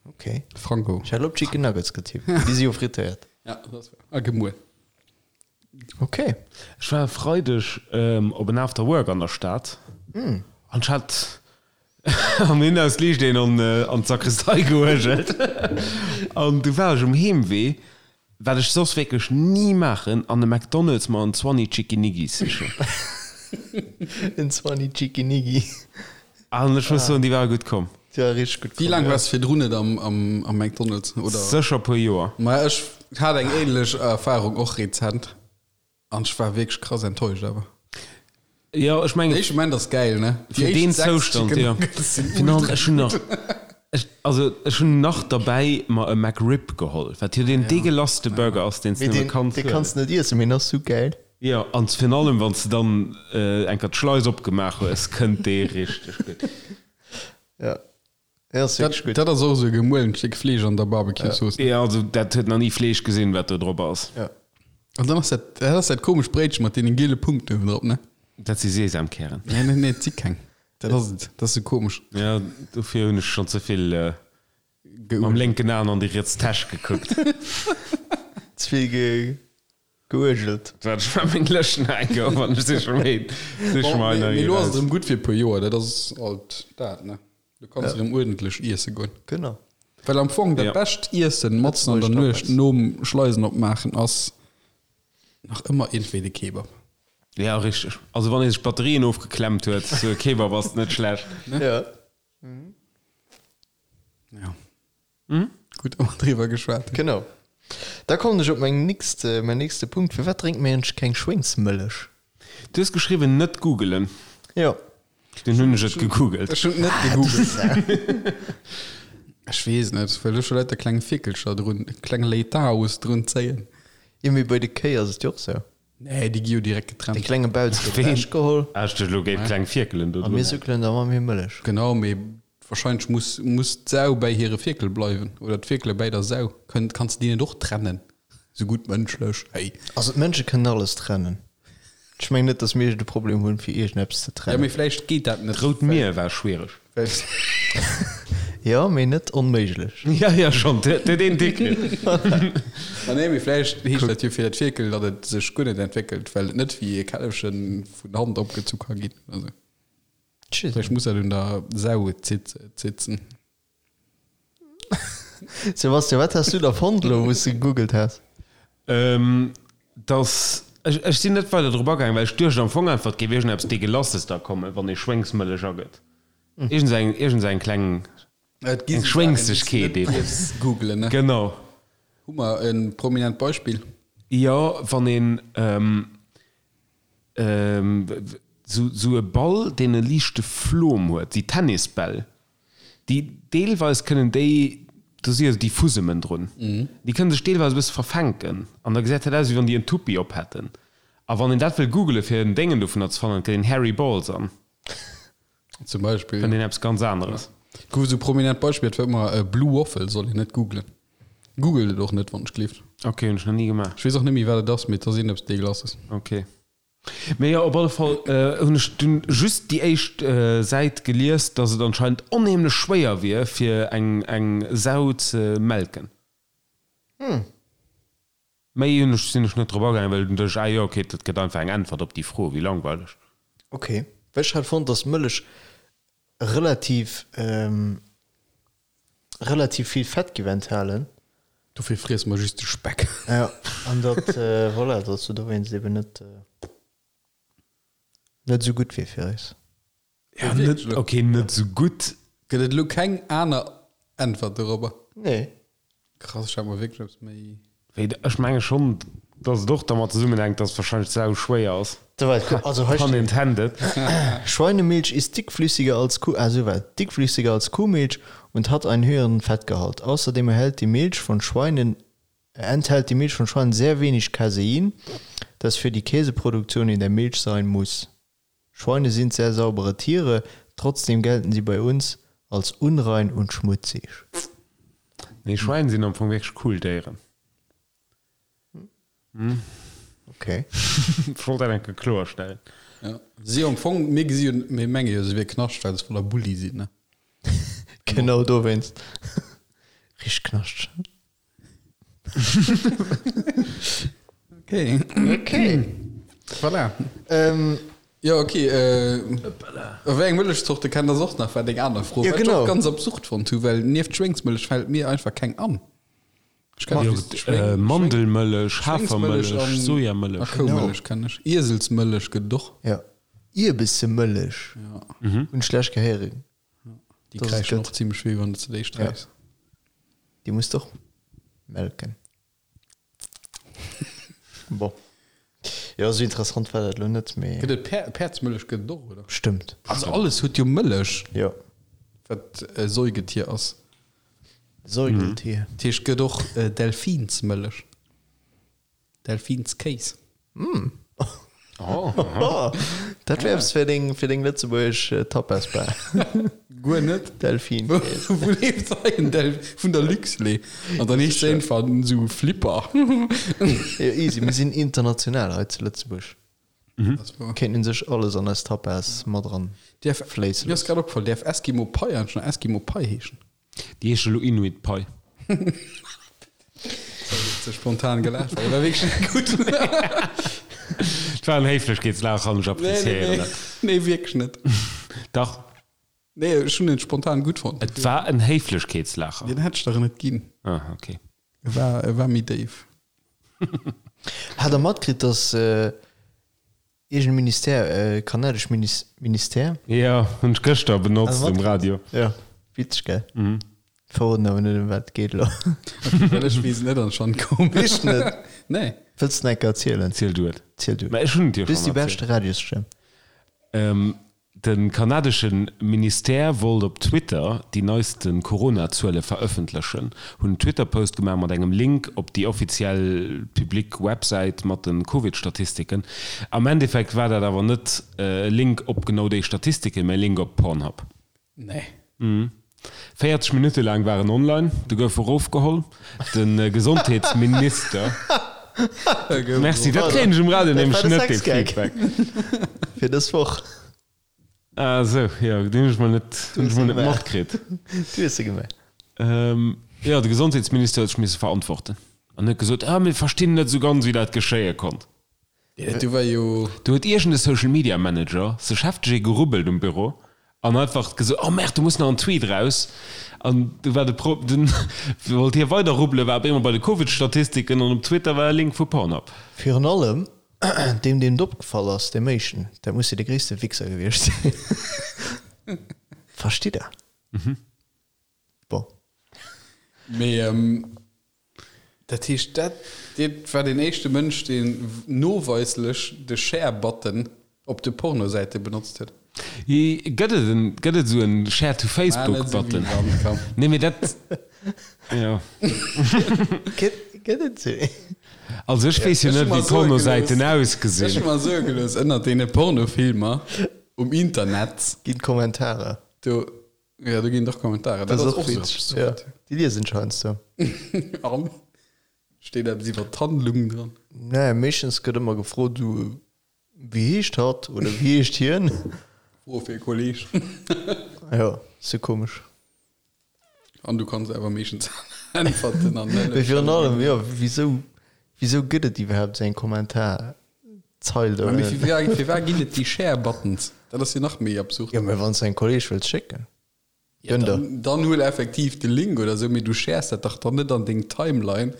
Okay. Frango. Ech hat elo op Chicken Nuggets getippt. Déi si jo frittéiert. Ja, dat ass wahr. A gemuel. Okay. Ech war e Freideg op en After Work an der Stad an ech hat am Inhouse liicht een an an d'Sakristei geuergelt an du war ech um Heemwee, wat ech soss wierklech ni maachen, an e McDonald's mer en Zwanni Chickiniggi sichen. En Zwanni Chickiniggi. An ech muss soen, déi ware gutt komm. Déi ware richteg gutt Wéi komm, laang ja. waars de virdrun net am am McDonald's, oder? Sécher e puer Joer. Ma ech hat eng ähnlech Erfahrung och rezent an ech war wierklech krass enttäuscht awer. Jo, ech mengen. Den éischte Moment ass gäil, ne? Déi Fir deen éischt 6 Zoustand, Chicken jo. Nuggets sinn Virun allem, ultra ech hunn nach, gutt. ech, also ech hunn nach derbäi mer e McRib geholl, wat jo deen deegelasste Burger ass, deen s de Mee nëmme deen, kanns dee huelen. kanns de net iessen, mee en ass sou gäil. Jo, an virun allem wann s de dann eng Kéier d'Schleis opgemaach hues, kënnt dee richteg gutt. Ja, dee ass wierklech gutt. Dat ass och esou e gemuelent Stéck Fleesch an der Barbecue-Zooss. Jo, also dat huet nach ni Fleesch gesinn, wat do drop ass. Ja. An dann ass dat, dat ass dat komescht Bréitche mat deenen giele Punkten uewen drop, ne? Dat si Sesamkären. Nee, nee, nee, et si keng. Dat ass et. Dat ass esou komesch. Jo, dofir hunn ech schonn ze vill mam lénken Aen an déi riets Täsch gekuckt. Ze vill geuergelt. Dat war meng lëscht nach eng Kéier, wann ech siche méi, siche mer einer Mee lo ass et erëm gutt fir e puer Joer, dat ass alt dat, ne? Du kanns erëm uerdentlech iesse goen. Genau. Well am Fong dat bescht Iessen matzen an der Nuecht nom Schleisen opmaachen ass nach ëmmer iergendwéi de Kebab. Ja, richteg. Also wann ee sech d'Batterien ofgeklemmt huet, sou e Kebab ass net schlecht. Ja. Ja. Gutt, datt mer driwwer geschwat hunn. Genau. Da kommen ech op meng nächst, mäin nächste Punkt. Firwat drénkt mir eigentlech keng Schwéngsmëllech? Du hues geschriwwen, net googelen. Jo. Dunn hunn ech et gegoogelt. Ech hunn et net gegoogelt. Ech weess net, well do scho lauter kleng Fierkelcher drun, kleng Leitaos drun zéien. Jo, mee bei de Kéi ass et jo och sou. Nee, déi gi jo direkt De getrennt. klenge Bauz gëtt ewechgeholl. Ah, ech duecht elo géif kleng Fierkelen do A mir drun. suckelen da mat méi Mëllech. Genau, mee Wahrscheinlech muss muss d'Sau bäi hire Fierkel bleiwen, oder d'Fierkele bäi der Sau. Kënnt, kanns de déi net och trennen? Sou gutt mënschlech, hey. Also d'Mënsche kënnen alles trennen. Ech mengen net, datt mir iergend e Problem hunn, fir iergendeppes ze Ja, trennen. mee vläicht geet dat net. D'Rout Mier war schwiereg. Well. Jo, mee net onméiglech. Ja, ja, schonn, dat huet een déck kritt. Ma nee, mee vläicht heescht dat jo fir dat Fierkel, datt et sech guer net entwéckelt, well et net wéi e Källefche vun Hand opgezu ka ginn oder sou. Vläicht muss dat un der Sau zitzen. Sebastian, wat has du da fonnt elo, wou s de gegoogelt has? Dass, ech sinn net weider drop agaangen, well ech duecht am Fong einfach, et géif iergendeppes Degelasses da kommen, wann ee Schwéngsmëllech agëtt. Iergend eng, eng kleng, eng Schwéngsegkeet eben. Googlen, ne? Genau. Hu mer e prominent Beispill? Jo, wann een. Sou e Ball, deen e liichte Flom huet, déi Tennisbäll, déi deelweis kënnen déi, do si jo déi Fusemen drun, déi kënnen sech deelweis e bësse verfänken an da gesäit dat aus, wéi wann déi en Tuppi op hätten. A wann een dat wëll googelen, fir en Déngen dovunner ze fannen, gëtt een Hairy Balls an. Zum Beispill. Fënnt een eppes ganz aneres. Gouf esou prominent Beispill, dat war ëmmer Blue Waffle, soll een net googlen. Googelt et och net, wann ech gleeft. Ok, hunn ech nach ni gemaach. Ech weess och net méi, wat et ass, mee et ass iergendeppes Degelasses. Ok. Mee jo, op alle Fall hunn ech dunn just déi éischt Säit gelies, dass et anscheinend onheemlech schwéier wier, fir eng eng Sau ze melken. Méi hunn ech sinn ech net drop agaangen, well dunn duecht ech, ah jo, ok, dat gëtt einfach eng Äntwert op déi Fro, wéi langweileg. Ok, well ech hat fonnt, dass Mëllech relativ relativ vill Fett giff enthalen. Dofir friesse mer just de Speck. Jo, an datt, voilà, datt se dowéinst eben net net esou gutt wier fir eis. Ja, net, ok, net esou gutt. Gëtt et elo keng aner Äntwert dorobber? Nee. Krass, ech hat mer wierklech eppes méi. Wéi, ech menge schonn, dass et och dermat zesummenhänkt, dass wahrscheinlech d'Sau schwéier ass. Also hei Pun steet, intended. Schweinemilch ist dickflüssiger als Kuh, ah souwäit, dickflüssiger als Kuhmilch und hat einen höheren Fettgehalt. Außerdem erhält die Milch von Schweinen enthält die Milch von Schweinen sehr wenig Casein, das für die Käseproduktion in der Milch sein muss. Schweine sind sehr saubere Tiere, trotzdem gelten sie bei uns als unrein und schmutzig. Nee, Schwäin sinn am Fong wierklech cool Déieren. Okay. Ech wollt dat eng Kéier kloerstellen. Ja. Si am Fong, mir gesi jo, mir menge jo, se wier Knascht, well se voller Bulli sinn, ne? Genau dowéinst. Richteg Knascht. Okay. Okay. Voilà. Ähm, Ja, okay. Äh, wéi eng Mëllechzorte kennt der och nach, war deng aner Fro. Ja, Wat ich genau. och ganz absurd fonnt hu, well nieft Schwéngsmëllech fält mir einfach keng an. Ech kenn just Schwéng, Äh, Mandelmëllech, Schwéngsmëllech Hafermëllech, an, a Sojamëllech. Koumëllech kenn ech. Ieselsmëllech gëtt et och. Ja. Ierbessemëllech. Ja. Hunn ech lech gehéieren. Déi Dass et kräischen gëtt. och zimmlech wéi, wann du ze déi sträichs. Déi muss de och melken. Bon. Jo, esou interessant war dat elo net, mee. Gëtt et Päer, Päerdsmëllech gëtt et och, oder? Bestëmmt. Also alles huet jo Mëllech, Jo. wat e Säugetier ass. Säugeltier. Dat heescht, gëtt och Delfinsmëllech. Delfinskéis. Oh, dat wär eppes fir deng, fir deng lëtzebuergesch Tapasbar. Guer net. Delfinkees. Wou leeft hei en Del vun der Luxlait? An dann heescht se einfach esou Flipper. Jo, easy, mir sinn international hei zu Lëtzebuerg. Kéinten sech alles an eis Tapas mat eran Däerf, fléisse mir ass loossen. grad opgefall, däerf Eskimo Pai eigentlech nach Eskimo Pai heeschen? Déi heescht elo Inuit Pai. Ze spontan gelaacht, well e war wierklech net gutt. Et war en Héiflechkeetslaachen an ech appréciéieren dat. Nee, nee, wierklech net. Dach. Nee, ech hunn en spontan gutt fonnt. Et war en Héiflechkeetslaacher. Deen hätt ech der net ginn. Ah, okay. E war, e war méi déif. Hat der matkritt, dass Iergend Ministère, kanadesch Ministère? Jo, hunn ech gëschter benotzt um Radio. Jo, witzeg, gell? Verroden awer net, ëm wat et geet elo. Ok, well ech weess et net an ech fannen et komesch. Weess de net? Nee. Wëlls de nach eng Kéier erzielen? Ziel du et. Ziel du et. Mä ech hunn et jo Du hues schonn déi beschte erzielt. Radiosstëmm. De kanadesche Ministère wollt op Twitter déi neiste Corona-Zuele verëffentlechen, hunn en Twitter-Post gemaach mat engem Link op déi offiziell public Websäit mat de Covid-Statistiken. Am Endeffekt war dat awer net e Link op genau déi Statistiken, mä e Link op Pornhub. Nee. 40 Minutte laang war en online, du gouf erofgeholl. De Gesondheetsminister. Merci, dat kréien ech um Radio nämlech net, dee Feedback. Fir dës Woch. Ah sou, jo, deen hunn ech mol net, hunn ech mol net matkritt. Du hues se gemaach. Jo, de Gesondheetsminister huet sech misse verantworten an huet gesot, ah, mir verstinn net esou ganz, wéi dat geschéie konnt. Du war jo. Do huet iergend e Social Media Manager sech hefteg ee gerubbelt um Büro an einfach gesot, oh merde, do muss nach en Tweet raus. An du war de Pro, dunn wollt hie weider rubbelen, war op eemol bei de Covid-Statistiken an op Twitter war e Link vu Pornhub. Virun allem deem, deem et opgefall ass, deem éischten, dat muss jo de gréisste Wichser gewiescht sinn. Verstitt der? Bon. Mee dat heescht, dat dat war deen éischte Mënsch, deen noweislech de Share-Button op de Pornosäite benotzt huet. Gëtt et en, gëtt et esou en Share to Facebook Button? Nee, mee dat, jo. Gëtt, gëtt et esou een? Also ech weess jo net, wéi Pornosäiten ausgesinn. Ech hu mer soe gelooss, ënnert deene Pornofilmer um Internet. Ginn Kommentarer. Do Ja, do ginn dach Kommentare. Dat ass och witzeg. Ja, déi liesen ech heiansdo. An? Steet eppes iwwer d'Handlung dran? Nee, meeschtens gëtt ëmmer gefrot, du, wéi heescht hatt oder wéi heescht hien? Fro fir e Kolleg. Jo, sou komesch. An du kanns awer meeschtens äntwerten an net. Mee virun allem, jo, wisou, wisou gëtt et iwwerhaapt esou eng Kommentarzeil do? Mee firwat ginn et déi Share-Buttons? Dat ass jo nach méi absurd. Jo, mee wann s de engem Kolleg wëlls schécken, gönn der. Dann huel effektiv de Link oder esou, mee du shares dat dach dann net an deng Timeline.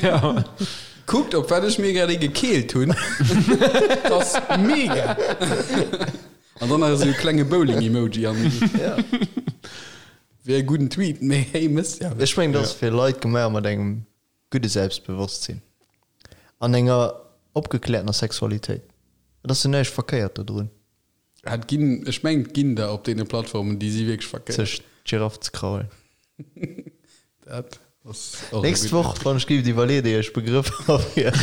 Ja. Kuckt op wat ech mir grad ee gekeelt hunn. Dat ass mega! An dann nach esou e klenge Bowling-Emoji an. Ja. Wier e gudden Tweet, mee hey, mëss ja. Ech mengen, dat ass fir Leit gemaach mat engem gudde Selbstbewosstsinn an enger opgekläertener Sexualitéit. Et ass jo näischt verkéiert dodrun. Et ginn, ech mengen, et ginn der op deene Plattformen, déi si wierklech verkéiert. Sech d'Giraff ze kraulen. Dat ass och e Nächst gudden. Woch, wann ech géif iwwerleet, éier ech Begrëffer fir.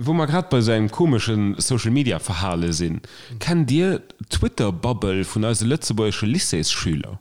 Wou mer grad bei esou engem komesche Social Media Verhale sinn, kennt Dir d'Twitter Bubble vun eise lëtzebuergesche Lycéesschüler?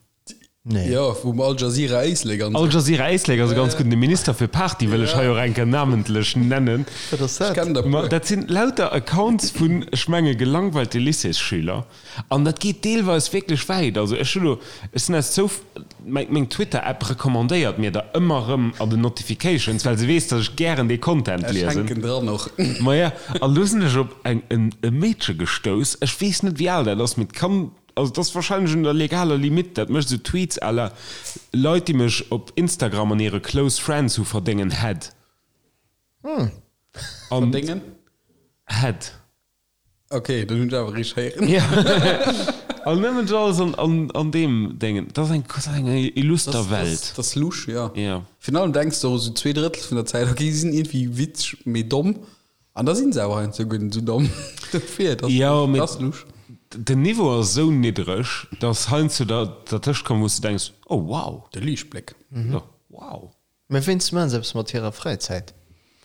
Nee. Jo, vum Al Jazeera Éislek an Al esou. Jazeera Éislek ass e ganz gudden. De Minister fir Party wëll ech hei och eng Kéier namentlech nennen. Wat ass Ech dat? kennen der Ma puer. dat sinn lauter Accounts vun, ech menge gelangweilte Lycéesschüler. An dat geet deelweis wierklech wäit. Also ech hunn elo, ech sinn aus Zouf, meng Twitter-App recommandéiert mir der ëmmer erëm an den Notifications, well se weess, datt ech gären dee Content Ech liesen. hänken dran och. Maja, an elo sinn ech op eng, en, e Meedche gestouss, ech weess net wéi al dat ass, mee et kann, Also et ass wahrscheinlech un der legaler Limite, dat mécht esou Tweets à la Leit déi mech op Instagram an hire Close Friends hu verdéngen Head. An Verdéngen? Head. Ok, dann hunn ech awer richteg héieren. Ja. An nëmmen dat alles an, an, an deem Déngen. Dat ass eng, dat ass eng illuster Das, Welt. das, das lusch, ja. Ja. Virun allem denks de och esou 2/3 vun der Zäit, ok, si sinn iergendwéi witzeg, mee domm. An da sinn se awer heiansdo guer net esou domm. Dofir, dat Jo, mee ass lusch. den Niveau ass esou niddreg, dass heiansdo der dertëscht komm, wou s de denks, oh wow. De Liichtbléck. Jo, wow. Mä wéinst maachen se eppes mat hirer Fräizäit?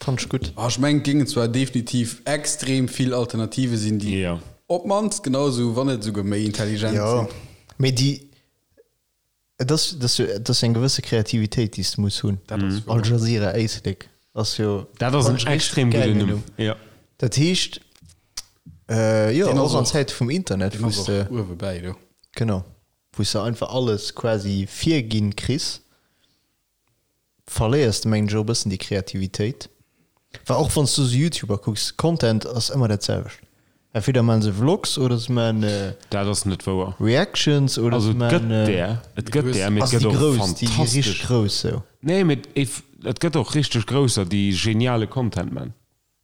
Fannt ech gutt. Ah, ech mengen, et géingen zwar definitiv extrem vill Alternative sinn, déi Jo. op d'mannst genau esou, wann net esouguer méi intelligent Jo, sinn. mee déi, et ass, et ass jo, et ass jo eng gewësse Kreativitéit, déi s de muss hunn. Dat ass Al wouer. Jazeera Éislek ass jo, Dat ass fannt en ech richteg extrem gudden gäilen Numm. Numm. Jo. Dat heescht, jo, Deen ass och an och, Zäite vum Internet, deen wou ass s och de, uewe bäi do. genau, wou s de einfach alles quasi virginn kriss. Verléiers de mengen ech och e bëssen déi Kreativitéit, well och wann s du sou Youtuber kucks, Content ass ëmmer dat selwecht, entweder maachen se Vlogs oder se maachen Dat ass net wouer. Reactions oder Also se et gëtt maachen där, et gëtt där, mee et also gëtt déi och grouss, déi déi richteg fantastesch. grouss sou. Nee, mee et gëtt och richteg grousser, déi geniale Content man.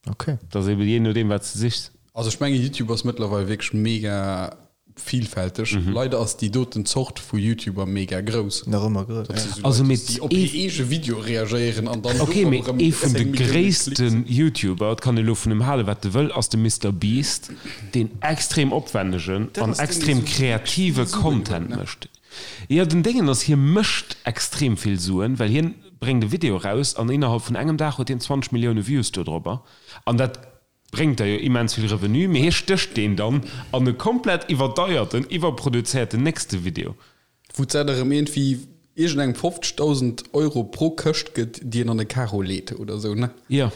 Ok. Et ass eben jee nodeem wat s de sichs. Also ech mengen YouTube ass mëttlerweil wierklech mega vielfälteg. Leider ass déi doten Zort vu YouTuber mega grouss. Nach ëmmer grouss, Dat si sou Also Leit, mee déi op hir eege Videoe reagéieren an dann Ok, dorop mee erëm ee vun de 10 Millioune Klicks. gréissten YouTuber, et kann ee lo vun em hale wat e wëll, ass de Mister Beast, deen extrem opwännegen Dat an ass deen, dee extrem sou wierklech kreative vill Suen huet, Content ne? mécht. Jo, den Déngen ass, hie mécht extrem vill Suen, well hien bréngt e Video eraus an innerhalb vun engem Dag huet hien 20 Millioune Views dodropper an dat bréngt der jo immens vill Revenu, mee hie stécht deen dann an e komplett iwwerdeierten, iwwerproduzéierten nächste Video. Wou d'Sat erëm iergendwéi iergendengem 50.000 Euro pro Këscht gëtt, déi en an e Karo leet oder esou, ne? Jo,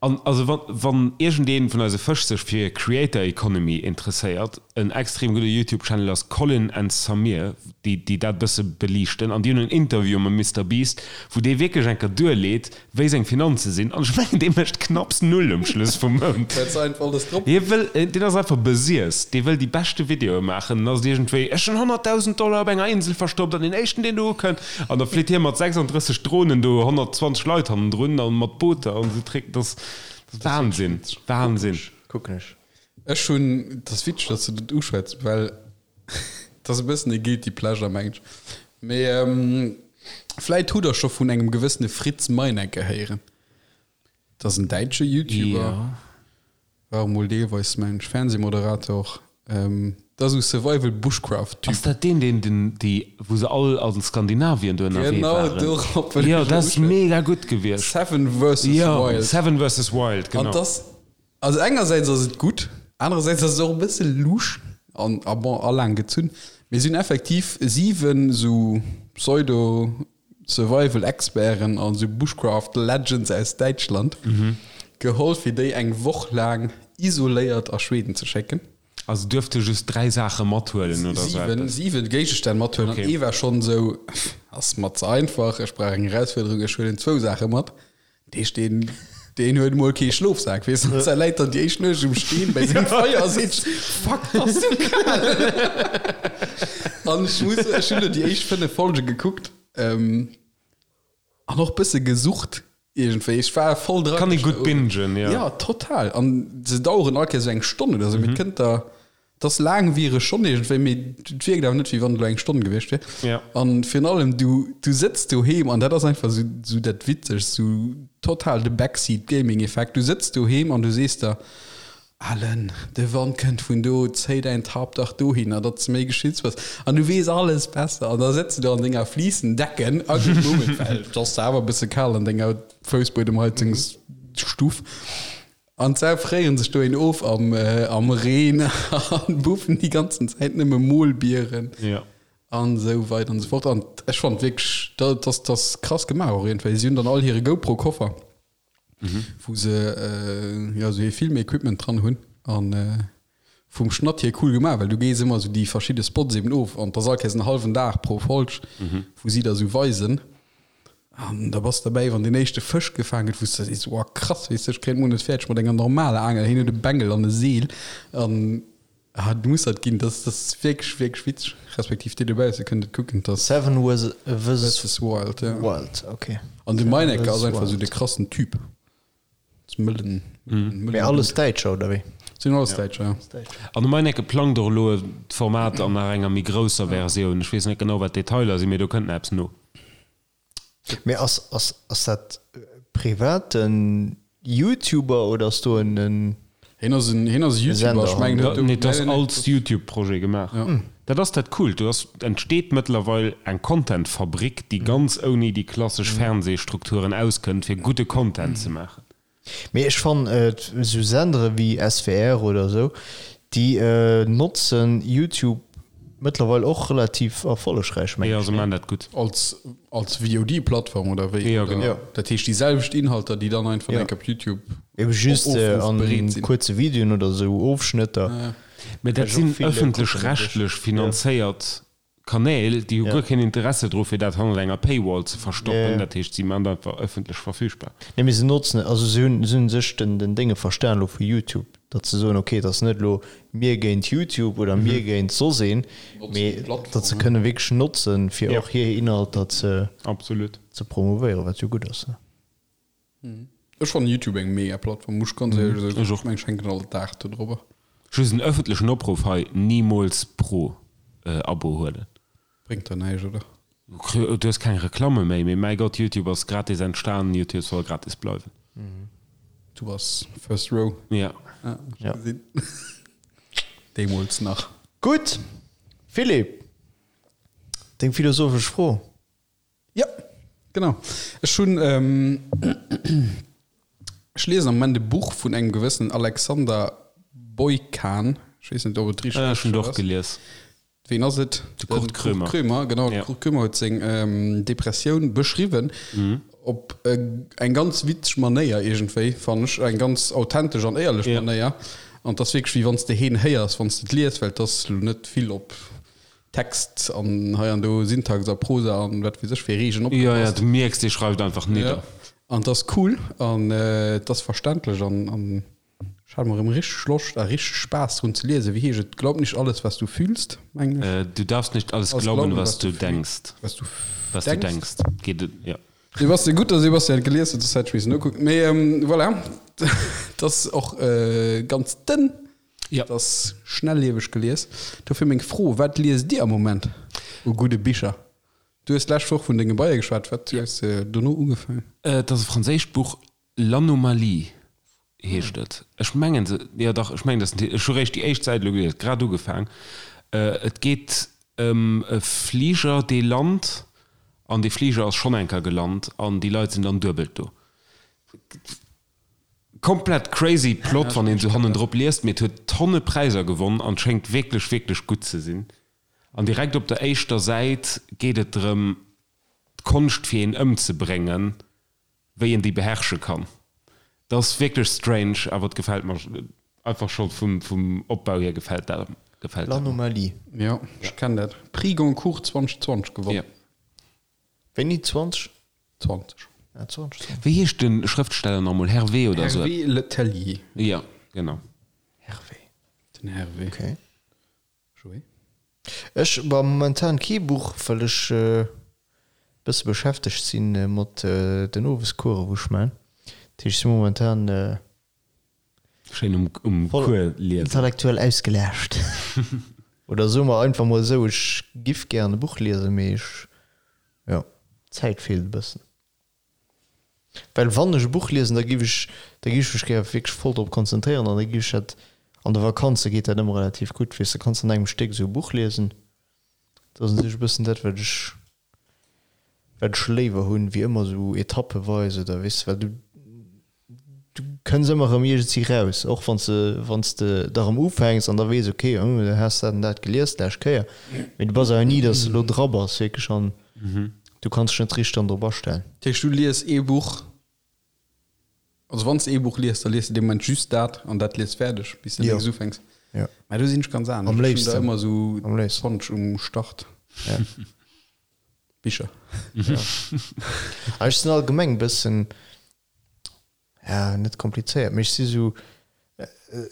An also wann, wann iergendeen vun eise Fësch sech fir Creator Economy interesséiert, en extrem gudde YouTube Channel ass Colin and Samir, déi déi dat bësse beliichten an déi hunn en Interview mam Mister Beast, wou dee wierklech eng Kéier duerleet, wéi seng Finanze sinn an ech mengen dee mécht knapps Null um Schluss vum Mount. Well se einfach alles drop. Hie wëll, deen ass einfach besiess, dee wëll déi beschte Videoe maachen, dann ass et iergendwéi, ech hunn 100.000 Dollar op enger Insel verstoppt an deen éischten deen do ukënnt, An da flitt hie mat 36 Dronen do 120 Leit hannendrun an mat Booter an esou Trick. Dat ass Wahnsinn, Wahnsinn. Kucken ech. Ech hunn, dat ass witzeg, datt s de dat uschwätz, well dat ass e bëssen e guilty pleasure, mengen ech. Mee vläit hutt der scho vun engem gewëssene Fritz Meinecke héieren. Dat ass en däitsche YouTuber. Jo. War emol deelweis mengen ech Fernsehmoderator. Dat ass esou Survival Bushcraft Typ. Ass dat deen deen den déi wou se all an Skandinavien do ënnerwee Genau waren? dorop wëll Jo ech dat ass uschwätzen. mega gutt gewiescht. Seven versus Jo Wild. Seven versus Wild An genau. dass also engersäits ass et gutt, anerersäits ass et och e bësse lusch an a bon a laang gezunn. Mee si hunn effektiv 7 esou Pseudo Survival Experten an sou Bushcraft Legends aus Däitschland geholl fir déi eng Woch laang isoléiert a Schweden ze schécken. Also duerfte just 3 Saache mathuelen oder sou eppes? 7 Géigestänn mathuelen an ee war schonn sou, ass mer ze einfach, ech brauch eng Erausfuerderung, ech huelen zwou Saache mat. Deesch deen, deen huet mol kee Schlofsak, weess du, se läit dann déi éischt Nuecht um Steen bei sengem Feier a seet, Fuck, ass du kal! An ech muss, ech hunn elo déi éischt 5 Folge gekuckt, ähm, an och bësse gesucht iergendwéi. Ech war voll dran. Kann ee gutt bingen, jo. Ja, total. An se daueren all Kéiers esou eng Stonn oder sou, mee et kënnt der Et ass laangwiereg schonn iergendwéi, mee et wierkt awer net, wéi wann et elo eng Stonn gewiescht wier. Ja. An virun allem, du, du sëtz doheem, an dat ass einfach esou, esou dat Witzegst, esou total de Backseat-Gaming-Effekt, du sëtz doheem an du sees der, Alen, de Wand kënnt vun do, zéi däin Tarp dach dohinner, datt s de méi geschützt bass. An du weess alles besser. An da sëtz du do an denger Flicendecken, a gutt Moment, well et ass awer e bësse kal an denger Foussbuedemheizungsstuff. An d'Sau fréieren sech dohin of am, am Reen an buffen déi ganzen Zäit nëmme Molbieren. Ja. An esou weider an esou fort. An ech fand wierklech, dat ass, dat ass krass gemaach och iergendwéi. Si hunn dann all hire GoPro-Koffer, wou se jo esou hir Filmequipment dran hunn. An vum Schnatt hier cool gemaach, well du gees ëmmer esou déi verschidde Spots eben of. An 't ass all Kéiers en hallwen Dag pro Folg, wou si der esou weisen. An da bass de derbäi, wann deen éischte Fësch gefaang gëtt, wou s de sees, Wow, krass, weess de, ech kréien d'Mol net fäerdeg mat enger normaler Aangel, hien huet e Bengel an e Seel an ah, du muss dat ginn. Dat ass wierklech, wierklech witzeg, respektiv dir dobausse kënnt et kucken, 't ass Seven versus versus Wild, ja. Wild, ok. An de Seven Meinecke versus ass einfach esou Wild. de krassen Typ. Das mëllen, mëllen Mee alles Däitscher, oder wéi? Sinn alles Däitscher, ja. An de Meinecke plangt och elo e Format an nach enger méi grousser Versioun. Ech weess net genau, wat d'Detailer sinn, mee do kënnt nach eppes no. Mee ass, ass, ass dat privaten Youtuber oder ass do en, en. Hien ass en, hien ass e YouTuber, ech mengen, Nee, dat ass als YouTube-Projet gemaach. Dat ass dat Coolt, do ass, entsteet mëttlerweil eng Content-Fabrik, déi ganz ouni déi klassesch Fernsehstrukturen auskënnt, fir gudde Content ze maachen. Mee ech fannen esou Sendere wéi SWR oder esou, déi notzen YouTube mëttlerweil och relativ erfollegräich, mengen ech. Jo, se maachen dat gutt. Als, als VOD-Plattform oder wéi? Jo, genau. Dat heescht déi selwecht Inhalter, déi dann einfach enk op YouTube Eben just op Ofruff an bereet sinn. kuerze Videoen oder esou Ofschnëtter. Mee dat sinn ëffentlech-rechtlech finanzéiert Kanäl, déi hu guer keen Interesse dru fir dat hannert enger Paywall ze verstoppen. Dat heescht, si man dat einfach ëffentlech verfügbar. Nee, mee se notzen, also se hunn, se hunn sech den, den Dénge verstan elo vu YouTube, datt se soen, okay, et ass net elo mir géint YouTube oder mir géint soss een, mee datt se kënne wierklech notzen, fir och hir Inhalter ze, Absolut. ze promovéieren, wat jo gutt ass. Ech fannen Youtube eng mega Plattform, muss ech ganz éierlech soen. Ech och. Ech hänken all Dag do drobber. Just en ëffentlechen Opruff hei, Nimools Pro Abo huelen. Bréngt der näischt, oder? Du hues keng Reklamme méi, mee mäi Gott, Youtube ass gratis entstan, Youtube soll gratis bleiwen. Du bass first row. Ja. Ja. Deemools nach. Gutt, Philippe, deng philosophesch Fro. Jo, genau. Ech hunn, ech liesen am Moment e Buch vun engem gewëssenen Alexander Boykan. Ech weess net, ob et richteg Ah, ech hunn et och gelies. Ween ass et? De Kurt Krömer. Kurt Krömer, genau. De Kurt Krömer huet seng Depressioun beschriwwen op eng ganz witzeg Manéier iergendwéi, fannen ech. Eng ganz authentesch an éierlech Manéier. An et ass wierklech, wéi wann s de heen héiers, wann s de et lies, well et ass elo net vill op Text an hei an do Syntax a Prosa an wat weess ech fir Regeln opgepasst. Jo, jo, du mierks, dee schreift einfach nidder. Ja, an 't ass cool an 't ass verständlech an an ech hat emol erëm richteg Loscht a richteg Spaass drun ze liesen. Wéi heescht et? Glaub nicht alles, was du fühlst, mengen ech. Du darfst nicht alles glauben, was du denkst. Was du Was du denkst. Geet et, jo. Sebastian, gutt, dass Sebastian et gelies huet, soss hätt ech missen nokucken. Mee voilà, 't ass och ganz dënn. Ja. Et ass schnellieweg gelies. Dofir meng Fro, Wat liest Dir am Moment u gudde Bicher? Du hues d'lescht Woch vun denge Beie geschwat. Wat hues de dono ugefaangen? Et ass e franséischt Buch, L'Anomalie heescht et. Ech mengen se, jo dach, ech mengen dat ass den Titel. Ech hu réischt déi éischt Säit elo gelies, grad ugefaang. Et geet ëm e Fliger, dee lant, an dee Fliger ass schonn eng Kéier gelant an déi Leit sinn dann duebelt do. Komplett crazy Plot wann een sou hannendrop liest, mee et huet tonne Präiser gewonn an schéngt wierklech wierklech gutt ze sinn. An direkt op der éischter Säit geet et drëm d'Konscht fir een ëmzebréngen, wéi een déi beherrsche kann. Dat ass wierklech strange, awer et gefält mer einfach scho vum vum Opbau hier gefält dat gefält dat mer. L'Anomalie. Jo, ech kenn dat. Prix Goncourt 2020 gewonn. Jo. Wéini? 20? 20. Ah, 20, 20. Wéi heescht de Schrëftsteller nach emol? Hervé oder esou? Hervé Le Tellier. Jo, genau. Hervé. Den Hervé. Okay. Joé? Ech, bah, momentan kee Buch, well ech e bësse beschäftegt si mat den Owescoursen, wou ech man. Dat heescht, ech si momentan Schéin um, um voll Cours liesen. intellektuell ausgelaascht. Oder soe mer einfach mol esou, ech giff gären e Buch liesen, mee ech, jo, d'Zäit feelt e bëssen. Well wann ech e Buch liesen, da giff ech, da giff ech mech gär wierklech voll drop konzentréieren an da giff ech dat, an de Vakanze geet dat ëmmer relativ gutt, weess de, kanns an engem Stéck esou e Buch liesen. Dat ass u sech e bëssen dat, wat ech wat ech léiwer hunn, wéi ëmmer esou etappeweis oder weess de, well du du kënns ëmmer erëm iergendwéi raus, och wann s de wann s de da erëm ufänks an da weess, ok, hm, du has dat an dat gelies d'lescht Kéier, mee du bass awer ni, datt s de elo dra bass wierklech an du kanns dech net richteg dann drop astellen. Dat heescht, du lies ee Buch, also wann s de ee Buch lies, da lies de dee Moment just dat an dat lies fäerdeg, bis de Jo. nächst ufänks. Jo. Mä do sinn ech ganz anescht. Am Ech hunn da léifsten. ëmmer esou Am léifsten. 20 um Start. Ja. Bicher. Ah, ech sinn allgemeng e bëssen, ja, net komplizéiert, mee ech si sou,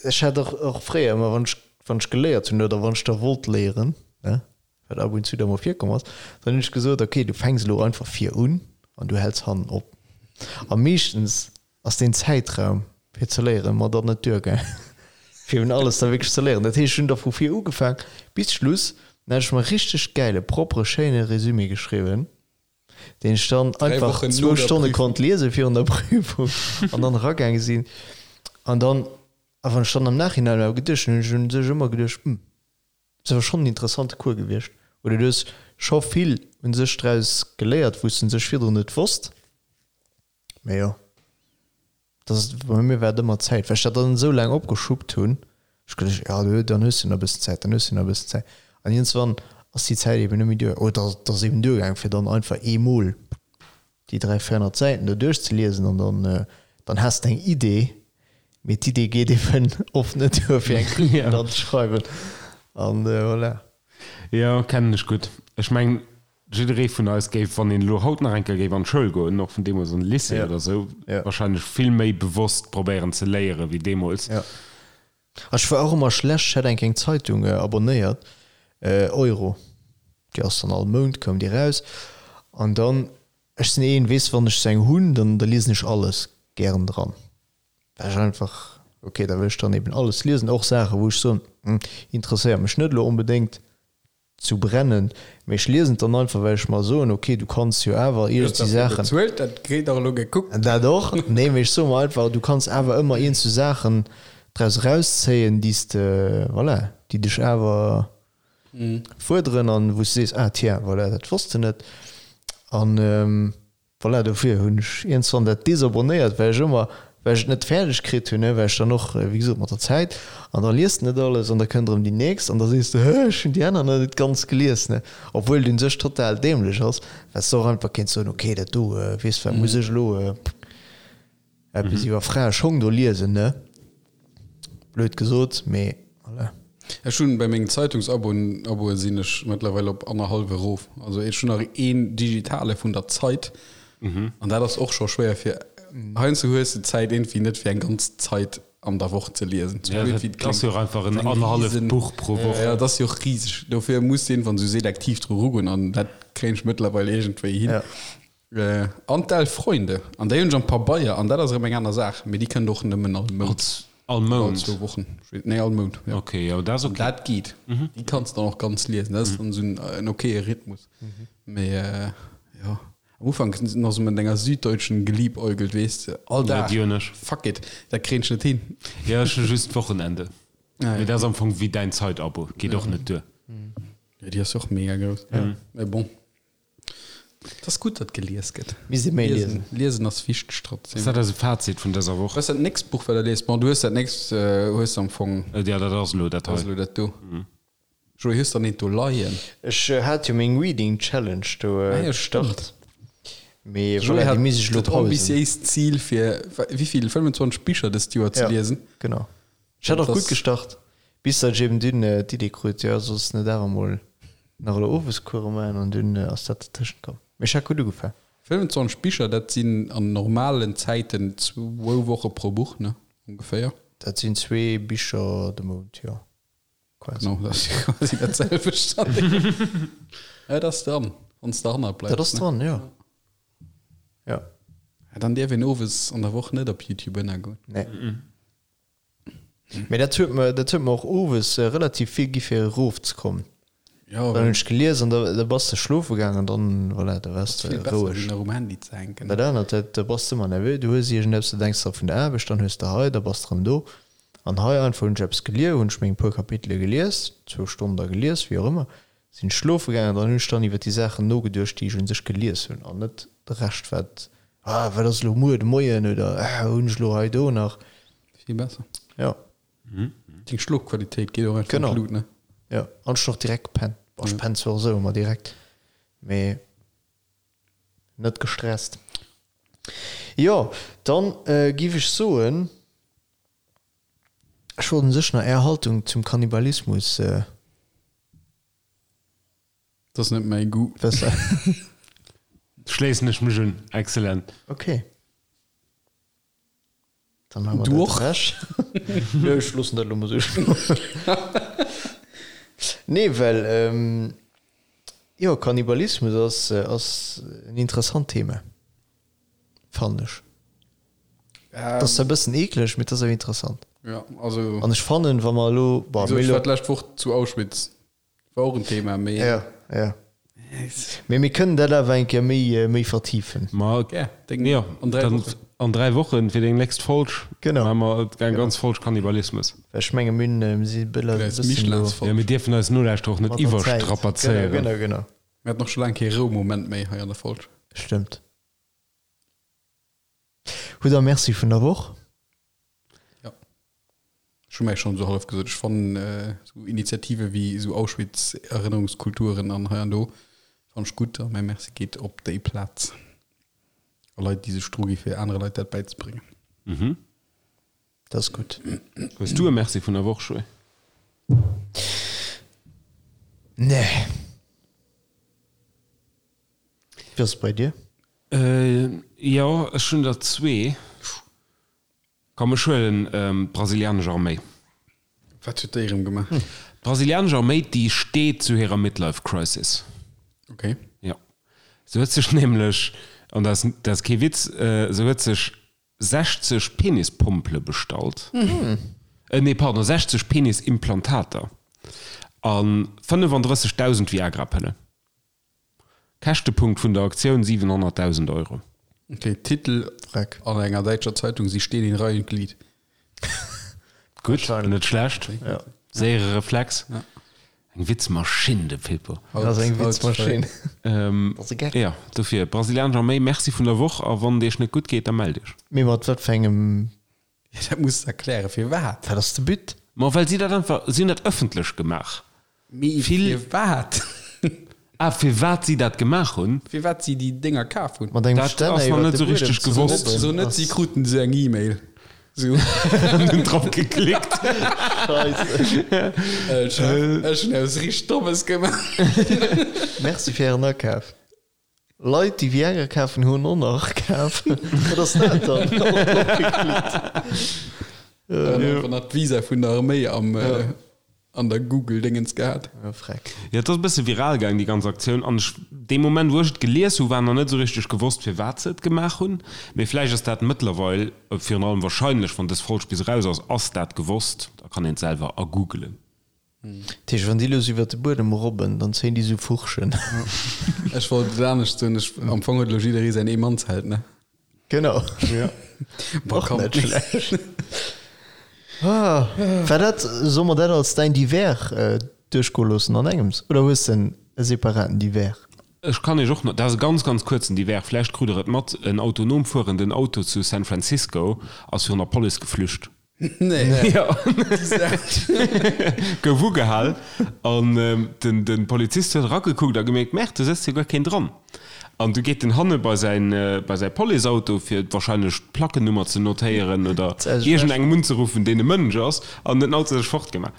ech hat och, och fréier ëmmer, wann ech, wann ech geléiert hunn oder wann ech da wollt léieren, ne, wat ab und zu da mol virkomm ass, dann hunn ech gesot, okay, du fänks elo einfach vir un an du häls hannen op. A meeschtens ass deen Zäitraum fir ze léieren mer dann net duergaang, fir un alles da wierklech ze léieren. Dat heescht, ech hunn da vu vir ugefaang bis Schluss, dann hat ech mer e richteg gäile, proppere, schéine Résumé geschriwwen, deen ech dann einfach zwou Stonne konnt liese virun der Prüfung an dann eragaange sinn. An dann, a wann ech dann am Nachhinein awer geduecht hunn, hunn ech un sech ëmmer geduecht, Hm, ass awer schonn en interessante Cours gewiescht. Oder du hues scho vill un sech draus geléiert, wou s de un sech virdrun net wosst. Mee jo. Dass, bei mir war et ëmmer d'Zäit, well ech dat dann esou laang opgeschuppt hunn, ech geduecht, jo du, dann hues du nach e bëssen Zäit, dann hues du nach e bëssen Zäit. An iergendswann ass déi Zäit eben net méi duer, oder et ass eben duergaang, fir dann einfach eemol déi 300, 400 Säiten do duerchzeliesen an dann, dann has de eng Idee, mee d'Idee geet eben oft net duer, fir eng Kritik dann ze schreiwen. An voilà. Jo, kennen ech gutt. Ech mengen, Jidderee vun eis géif, wann een elo haut nach eng Kéier géif an d'Schoul goen, och vun deemools an de Lycée oder esou, wahrscheinlech vill méi bewosst probéieren ze léieren wéi deemools. Jo. Ech war och ëmmer schlecht, ech hat eng Kéier eng Zeitung abonnéiert, Euro, déi ass dann all Mount koum déi raus an dann, ech sinn een, weess, wann ech sou eng hunn, dann da liesen ech alles gären dran, well ech einfach, ok, da wëll ech dann eben alles liesen, och Saache wou ech soen, interesséiert mech net elo onbedéngt, zu brennen, mee ech liesen et dann einfach, well ech mer soen, ok, du kanns jo awer iergendwéi Saachen. Bezuelt, dat kritt och elo gekuckt. Dat och, nee, mee ech soe mer einfach, du kanns awer ëmmer iergendwéi Saachen draus erauszéien, déi s de, voilà, déi dech awer fuerderen an wou s de sees, ah tiens, voilà, dat wosst de net. An Voilà, dofir hunn ech iergendswann dat desabonnéiert, well ech ëmmer, well ech et net fäerdeg kritt hunn, well ech dann och, wéi gesot, mat der Zäit, an da liest de net alles an da kënnt erëm déi nächst an da sees de, hë, ech hunn déi aner nach net ganz gelies, ne, obwuel et un sech total dämlech ass, well s de och einfach kéints soen, ok, dat do, weess wat, muss ech elo Eppes iwwer Fraeschong do liesen, ne? Blöd gesot, mee voilà. Ech hunn bei mengen Zeitungsabonn Aboe sinn ech mëttlerweil op annerhallwe erof. Also ech hunn nach een digitale vun der Zeit an dat ass och scho schwéier fir heiansdo hues de d'Zäit iergendwéi net fir eng ganz Zeit an der Woch ze liesen. Sou Ja, blöd wéi dat et ass kléngt. jo och einfach en Eng annerhalleft riesen Buch pro Woch. Ja, dat ass jo och riseg. Dofir muss de iergendwann sou selektiv dru rugoen an dat kréien ech mëttlerweil iergendwéi hin. Ja. An d'Elf Freunde, an déi hunn ech am Pabeier, an dat ass erëm eng aner Saach, mee déi kënnt och nëmmen all Mount. All Mount? All zwou Wochen, nee, all Mount, jo. Ok, jo, dat ass ok. An dat geet, déi kanns de dann och ganz liesen, dat ass dann esou en okaye Rhythmus. Mee jo, am Ufank nach esou mat enger Süddeutschen geliebäugelt, weess de, all Dag, Ja, déi hunn ech. fuck it, dat kréien ech net hin. Jo, ech hu just d'Wochenende. Ah, Mee jo. dat ass am Fong wéi däin Zeitabo, geet och net duer. Jo, déi ass och mega grouss, mee bon. Et ass gutt, datt gelies gëtt. Misst ee méi liesen. Liesen ass wichteg trotzdem. Ass dat eise Fazit vun dëser Woch? Wat ass dat nächst Buch, wat der liest? Bon, du hues dat nächst hues de am Fong. Jo, dat ass elo dat hei. Ass elo dat do. Joé, hues der eent do leien? Ech hat jo meng Reading Challenge do gestart, mee Joé voilà, hat déi misst ech elo dat pausen. ambitiéist Zil fir wéivill, 25 Bicher dëst Joer ze liesen. Ja, genau. Ech hat och gutt gestart, bis datt ech eben dunn d'Idee krut, jo solls net awer mol nach elo Owescourse maachen an dunn ass dat dertëschent komm. Mee ech hat gutt ugefaang. 25 Bicher, dat sinn an normalen Zäiten zwou Woche pro Buch, ne? Ongeféier. Dat sinn zwee Bicher de Mount, jo, quasi. Genau, dat ass quasi dat selwecht. Dat ass dran, wann s de derhannert bleifs. Dat ass dran, jo. Jo. Dann dierf een owes an der Woch net op YouTube ënnergoen. Nee. Mee dat huet mer, dat huet mer och owes relativ vill gi fir erofzekommen. Ja, Dann hunn ech gelies an da, da bass de schlofe gaangen an dann, voilà, da waars de vill besser roueg. wéi nach um Handy ze hänken. Dat anert, dat, da bass de ëmmer nervös, du hues iergendeppes, du denks dra vun der Aarbecht, dann hues de hei, da bass de rëm do. An hei einfach hunn ech eppes gelies, hunn ech meng puer Kapitele gelies, zwou Stonnen da gelies, wéi och ëmmer, sinn ech schlofe gaangen an dann hunn ech dann iwwer déi Saachen nogeduecht, déi ech un sech gelies hunn an net de Rescht, wat, ah, wat ass elo muer de Moien oder ah, hunn ech elo hei do nach. Vill besser. Ja. Deng Schlofqualitéit geet och einfach an Genau. d'Lut, ne? Ja, an ech hunn och direkt gepennt. Bon, ech pennen zwar och esou ëmmer direkt, mee net gestresst. Jo, dann giff ech soen, ech wollt un sech nach Är Haltung zum Kannibalismus. Dat ass net mäi Goût. Wëssen. Schléissen ech mech un. Excellent. Ok. Dann haben wir Du dat och? ewech. Nö, ech loossen dat elo mol esou stoen. Nee, well, ähm, jo, Kannibalismus ass, ass en interessant Thema, fannen ech. Et ass zwar e bëssen eekleg, mee et ass awer interessant. Ja, also. An ech fannen, wa mer elo, bon, Wéi gesot, mir ech elo. war d'lescht Woch zu Auschwitz. War och en Thema, mee. Ja, ja. Mee mir kënnen dat awer eng Kéier méi, méi vertiefen. Ma Gär, deng, jo, an 3 dann Wochen. an 3 Wochen fir deng nächst Folg Genau. maache mer eng ganz Folg Kannibalismus. Well ech menge mir hunn, mir si bëlle Fir eis bëssen elo Michelins-Folg. Jo, mir dierfen eis Nolauschterer och net mat der Zäit. iwwerstrapazéieren. Genau, genau, genau. Mir haten och scho laang kee Roumoment méi hei an der Folg. Stëmmt. Hutt der Merci vun der Woch? Ech hu mär schonn esou hallef gesot, ech fannen esou Initiative wéi esou Auschwitz-Erënnerungskulturen an hei an do fannen ech gutt a mäi Merci geet op déi Plaz a Leit, déi sech dru gi fir anere Leit dat bäizebréngen. Dat ass gutt. Hues du e Merci vun der Woch, Joé? Nee. Wéi ass et bei dir? Jo, ech hunn der zwee. Komm, ech huelen d'brasilianesch Arméi. Wat huet déi erëm gemaach? D'brasilianesch Arméi, déi steet zu hirer Midlife Crisis. Ok. Jo. Se huet sech nämlech, an dat ass, dat ass kee Witz, se huet sech 60 Penispompele bestallt, nee, pardon, 60 Penisimplantater a 35.000 Viagra-Pëllen. Käschtepunkt vun der Aktioun, 700.000 Euro. Ok, Titel Freck. an enger däitscher Zeitung, Sie stehen in Reih und Glied. Gutt, net schlecht. Ja. Séiere Reflex. Ja. Eng Witzmaschinn, de Pippo. Dat ass eng Witzmaschinn. Dat ass e Geck. Jo, dofir, Brasilianesch Arméi, Merci vun der Woch a wann et iech net gutt geet, da mellt iech. Mee mat wat fir engem Ja, dat muss de erklären, firwat? Wat ass de But? Ma well si dat einfach, si hunn dat ëffentlech gemaach. Mee firwat? Ah, firwat si dat gemaach hunn? Firwat si déi Dénger kaf hunn? Mat engem Dat Stänner ass nach iwwer net de esou Buedem richteg ze gewosst. robben So net, si ass. kruten esou eng E-Mail. Sou. An hunn drop geklickt. Scheisse. Äh, Chef, ech hunn eppes richteg Dommes gemaach. Merci fir Ären Akaf. Leit déi Viagra kafen hunn och nach kaf. Wat ass dat dann? Och drop geklickt. Dann einfach nach d'Visa vun der Arméi am, an der Google-Dingens gehat. Ja, freck. Jo, et ass e bësse viral gaang, déi ganz Aktioun. An ech, dee Moment, wou ech et gelies hu, war nach net esou richteg gewosst, firwat se et gemaach hunn. Mee vläicht ass dat mëttlerweil, virun allem wahrscheinlech, wann dës Folg bis eraus ass, ass dat gewosst. Da kann een et selwer agoogelen. Dat heescht, wann déi elo sou iwwer de Buedem robben, dann zéien déi sou Furchen. Ech wollt et anescht soen, ech, am Fong huet elo jidderee säin Eemannsheld, ne? Genau. Ja. Boah, Och komm. net schlecht. Ah, war dat, solle mer dat als däin Divers duerchgoe loossen an engems, oder hues de e separaten Divers? Ech kann iech och nach, dat ass e ganz, ganz kuerzen Divers, vläicht krut der et mat, en autonom fuerenden Auto zu San Francisco ass virun der Police geflücht. Nee. Jo. Gouf ugehal an den den Polizist huet eragekuckt a gemierkt, Merde, do sëtzt jo guer keen dran. An du geet en hanne bei säin bei säi Policeauto fir wahrscheinlech d'Plackennummer ze notéieren oder iergendengem unzeruffen, deen e Mënsch ass, an den Auto sech fortgemaach.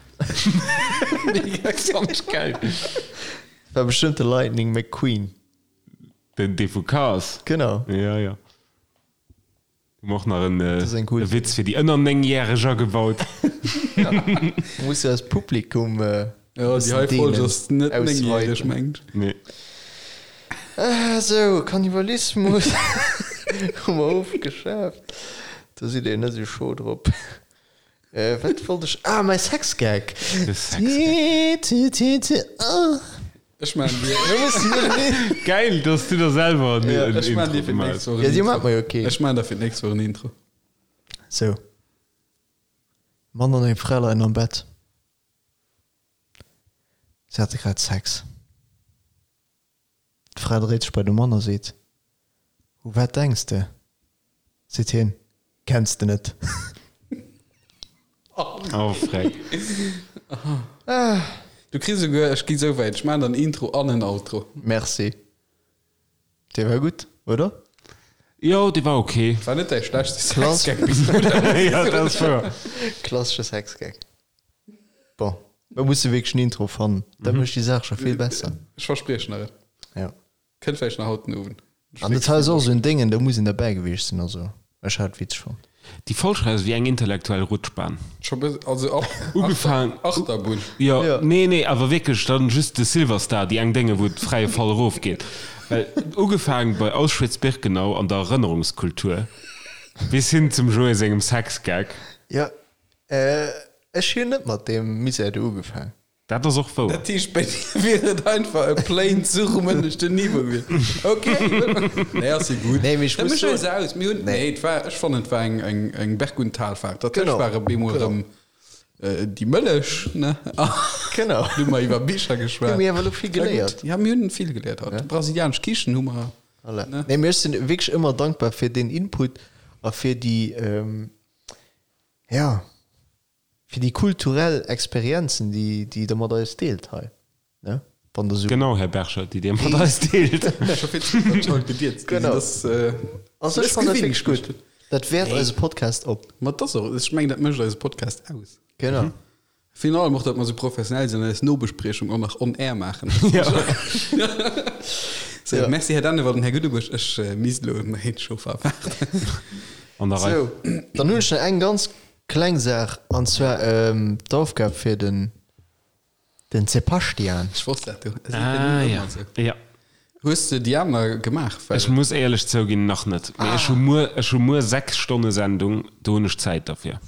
Mega Fand ech geil. War bestëmmt de Lightning McQueen. Den dee vu Cars? Genau. Jo, jo. Hu mer och nach en e Witz fir déi ënner 9 järeg agebaut. Muss jo eist Publikum Jo, déi hei Folg ass net 9 järeg, mengt ech. Nee. Sou, Kannibalismus hu mer ofgeschaaft. Do sidd Dir net esou scho drop. Wat wollt ech? Ah, mäi Sexgag! De Sexgag. Ech maan dir. Geil, dass du der selwer en Ja, ech maan Intro dir fir gemaach d'nächst Woch en Ja, dir Intro. maacht mer jo keen. Ech maan der fir d'nächst Woch en Intro. Sou. Mann an eng Fra leien am Bett. Si hate grad Sex. D'Fra dréit sech bei de Mann a seet, U wat denks de? Seet hien, Kenns de net? Oh freck. Du kriss esouguer, ech gi sou wäit, ech maan der en Intro an en Outro. Merci. Dee war gutt, oder? Jo, dee war ok. War net däi schlechtste Klass. Sexgag bis elo. Jo, dat ass wouer. Klassesche Sexgag. Bon, mer musse wierklech en Intro fannen. Dat mécht déi Saach scho vill besser. Ech verspriechen der et. Ja. Kënnt vläicht nach haut den Owend. An dat hei ass och esou en Déngen, do muss een derbäi gewiescht sinn. Also, ech hat et witzeg fonnt. Déi Folg hei ass wéi eng intellektuell Rutschbahn. Scho bes, also ab Ugefaang. Achterbunn. Jo, Ja. nee, nee, awer wierklech dann just de Silverstar, déi eng Dénge wou et fräie Fall erofgeet. Well ugefaang bei Auschwitz-Birkenau an der Erënnerungskultur bis hin zum Joé sengem Sexgag. Jo, ech hunn net mat deem Misär do ugefaang. Dat ass och wouer. Dat heescht, bei dir wier et einfach e plain Zuch um ënneschten Niveau gewiescht. Ok, nee, ass jo gutt. Nee, mee ech Da muss méch eis soen. aus. Mir hunn, nee, et war, ech fannen, et war eng, eng, eng Berg und Talfahrt. Dat Genau, tëscht war op eemol genau. erëm déi Mëllech, ne? Genau. Hu mer iwwer Bicher geschwat. Jo, mir hu awer elo vill War gutt. geléiert. Ja, mir hunn vill geléiert haut. Brasilianesch Kichen hu mer. Voilà. Ne? Nee, mee ech sinn wierklech ëmmer dankbar fir deen Input a fir déi, ja. Fir déi kulturell Experienzen, déi, déi Der mat eis deelt hei, ne? Wann Der esou. Genau, Här Berger, déi Dir mat eis deelt. Scho vill ze gutt, datt ech haut gedierzt ginn sinn. Genau. Dat ass, Also ech dat fannen dat gewinnt wierklech gutt. Dat wäert eise Podcast op. Ma dat ass och, ech mengen, dat mécht eise Podcast aus. Genau. Virun allem och, datt mer esou professionell sinn an eis Nobespriechung och nach on air maachen. Sou, Ja. merci Här Dennewald an Här Guddebusch. Ech misst elo méin Chauffer erwaarden. An der Rei. Sou, dann hunn ech nach eng ganz Kleng Saach, an zwar d'Aufgab fir den den Sebastian. Ech wosst dat du. Ah ja, ja. Hues de déi aner gemaach? Well. Ech muss éierlech zouginn, nach net. Mee ech hu muer, ech hu muer 6 Stonne Sendung, do hunn ech Zäit derfir.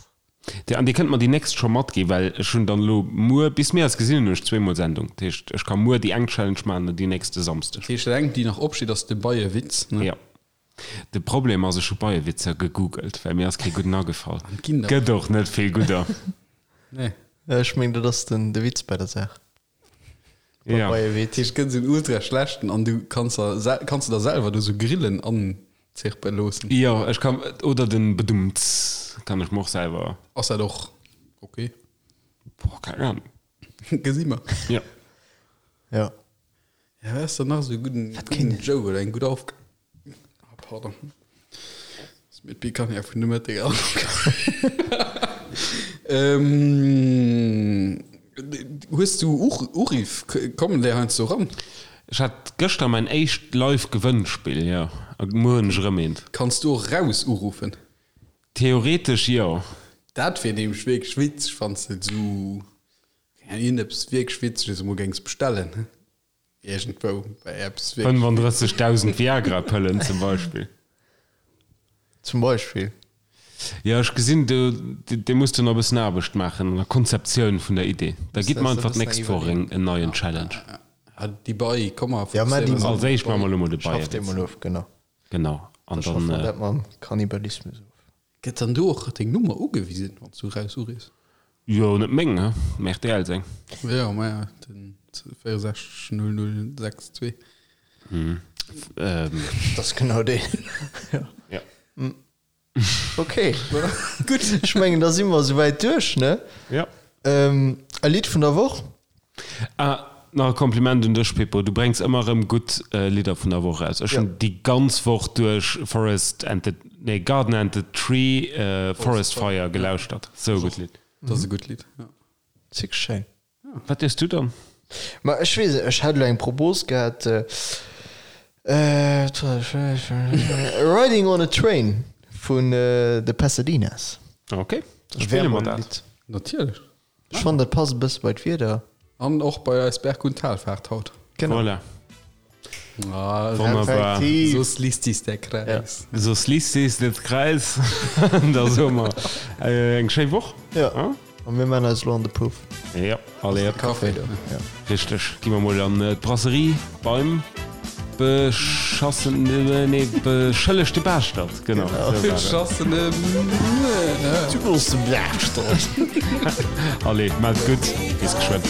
Dir, an Dir kënnt mer déi nächst scho matginn, well ech hunn dann elo muer, bis mir eis gesinn hunn, hunn ech zweemol Sendung. Dat heescht, ech ka muer déi eng Challenge maachen an déi nächst e Samsdeg. Dat heescht, dat eng, déi nach opsteet, ass de Beiewitz, ne? Jo. De Problem ass, ech hu Beiewitzer gegoogelt, well mir ass kee gudden agefall. An et ginn der. Gëtt och net vill gudder. Nee. Ech meng dat ass den de Witz bei der Saach. Beim Ja. Beiewitz. Dat heescht, et gëtt esou en ultra schlechten an du kanns der kanns de der selwer do sou Grillen anzirpe loossen. Jo, ech kann, oder den Bedumts kann ech mer och selwer. Ass dat och ok? Boah, keng Ahnung. Gesi mer. Ja. Ja. Ja, wat ass dann nach esou e gudden, gudden Joke oder eng gutt Aufgab? Ah, pardon. Ass mir d'Picanha vun de Mëtteg an. Ähm, hues du Uriff? Kommen där heiansdo eran? Ech hat gëschter mäin éischt live Gewënnspill, jo. A muer hunn ech erëm eent. Kanns du och raus uruffen? Theoretesch jo. Dat wier nämlech wierklech witzeg, wann s de esou Iergendeppes wierklech Witzeges emol géings bestellen, iergendwou bei eppes wierklech. 35.000 Viagra-Pëllen zum Beispill. Zum Beispill. Jo, ech gesinn, do, dir musst do nach e bëssen Aarbecht maachen an der Konzeptioun vun der Idee. Da gitt mer einfach d'nächst Woch en neien Challenge. Ah, déi Bei, komm mer Ja, mä déi. Als éischt maache mer elo mol de Schafft dee Beiewitz. mol of, genau. Genau, an Da schaffe dann. mer dat mam Kannibalismus of. Gëtt dann do och deng Nummer ugewisen, wann s du raus uriffs? Jo, net meng, he, mä rtl seng. Jo, maja, den 64 0062. Dat ass genau deen. Ja. Ok, gutt. Ech mengen, da si mer esouwäit duerch, ne? Ja. E Lidd vun der Woch? Ah, nach e Kompliment un dech, Pippo, du brengs ëmmer erëm gutt Lidder vun der Woch eraus. Ech hunn déi ganz Woch duerch Forest and the, nee, Garden and the Tree, Forest Fire gelauschtert. Sou e gutt Lidd. Dat ass e gutt Lidd, jo. Zick schéin. Wat hues du dann? Ma ech weess net, ech hat elo eng Propos gehat, Riding on a Train vun The Pasadenas. Ok, da spille mer dat. Natierlech. Ech fannen dat passt e bësse bei d'Wieder. An och bei eis Berg und Talfahrt haut. Genau. Voilà. Ah, Wonnerbar. Effektiv. So schließt sich der Kreis. Ja. So schließt sich der Kreis. da soe mer äh, eng schéi Woch. Ja. Ah? A mir man eis lo an de Puff. Ja, allez. Kaffee. Ja. Richteg. Gi mer mol an äh, d'Brasserie beim beschassene, nee, beschëllegte Baaschtert. Genau. Genau. So war et. Beschassene. Du bass de Baaschtert. Allez, maat gutt. Bis geschwënn.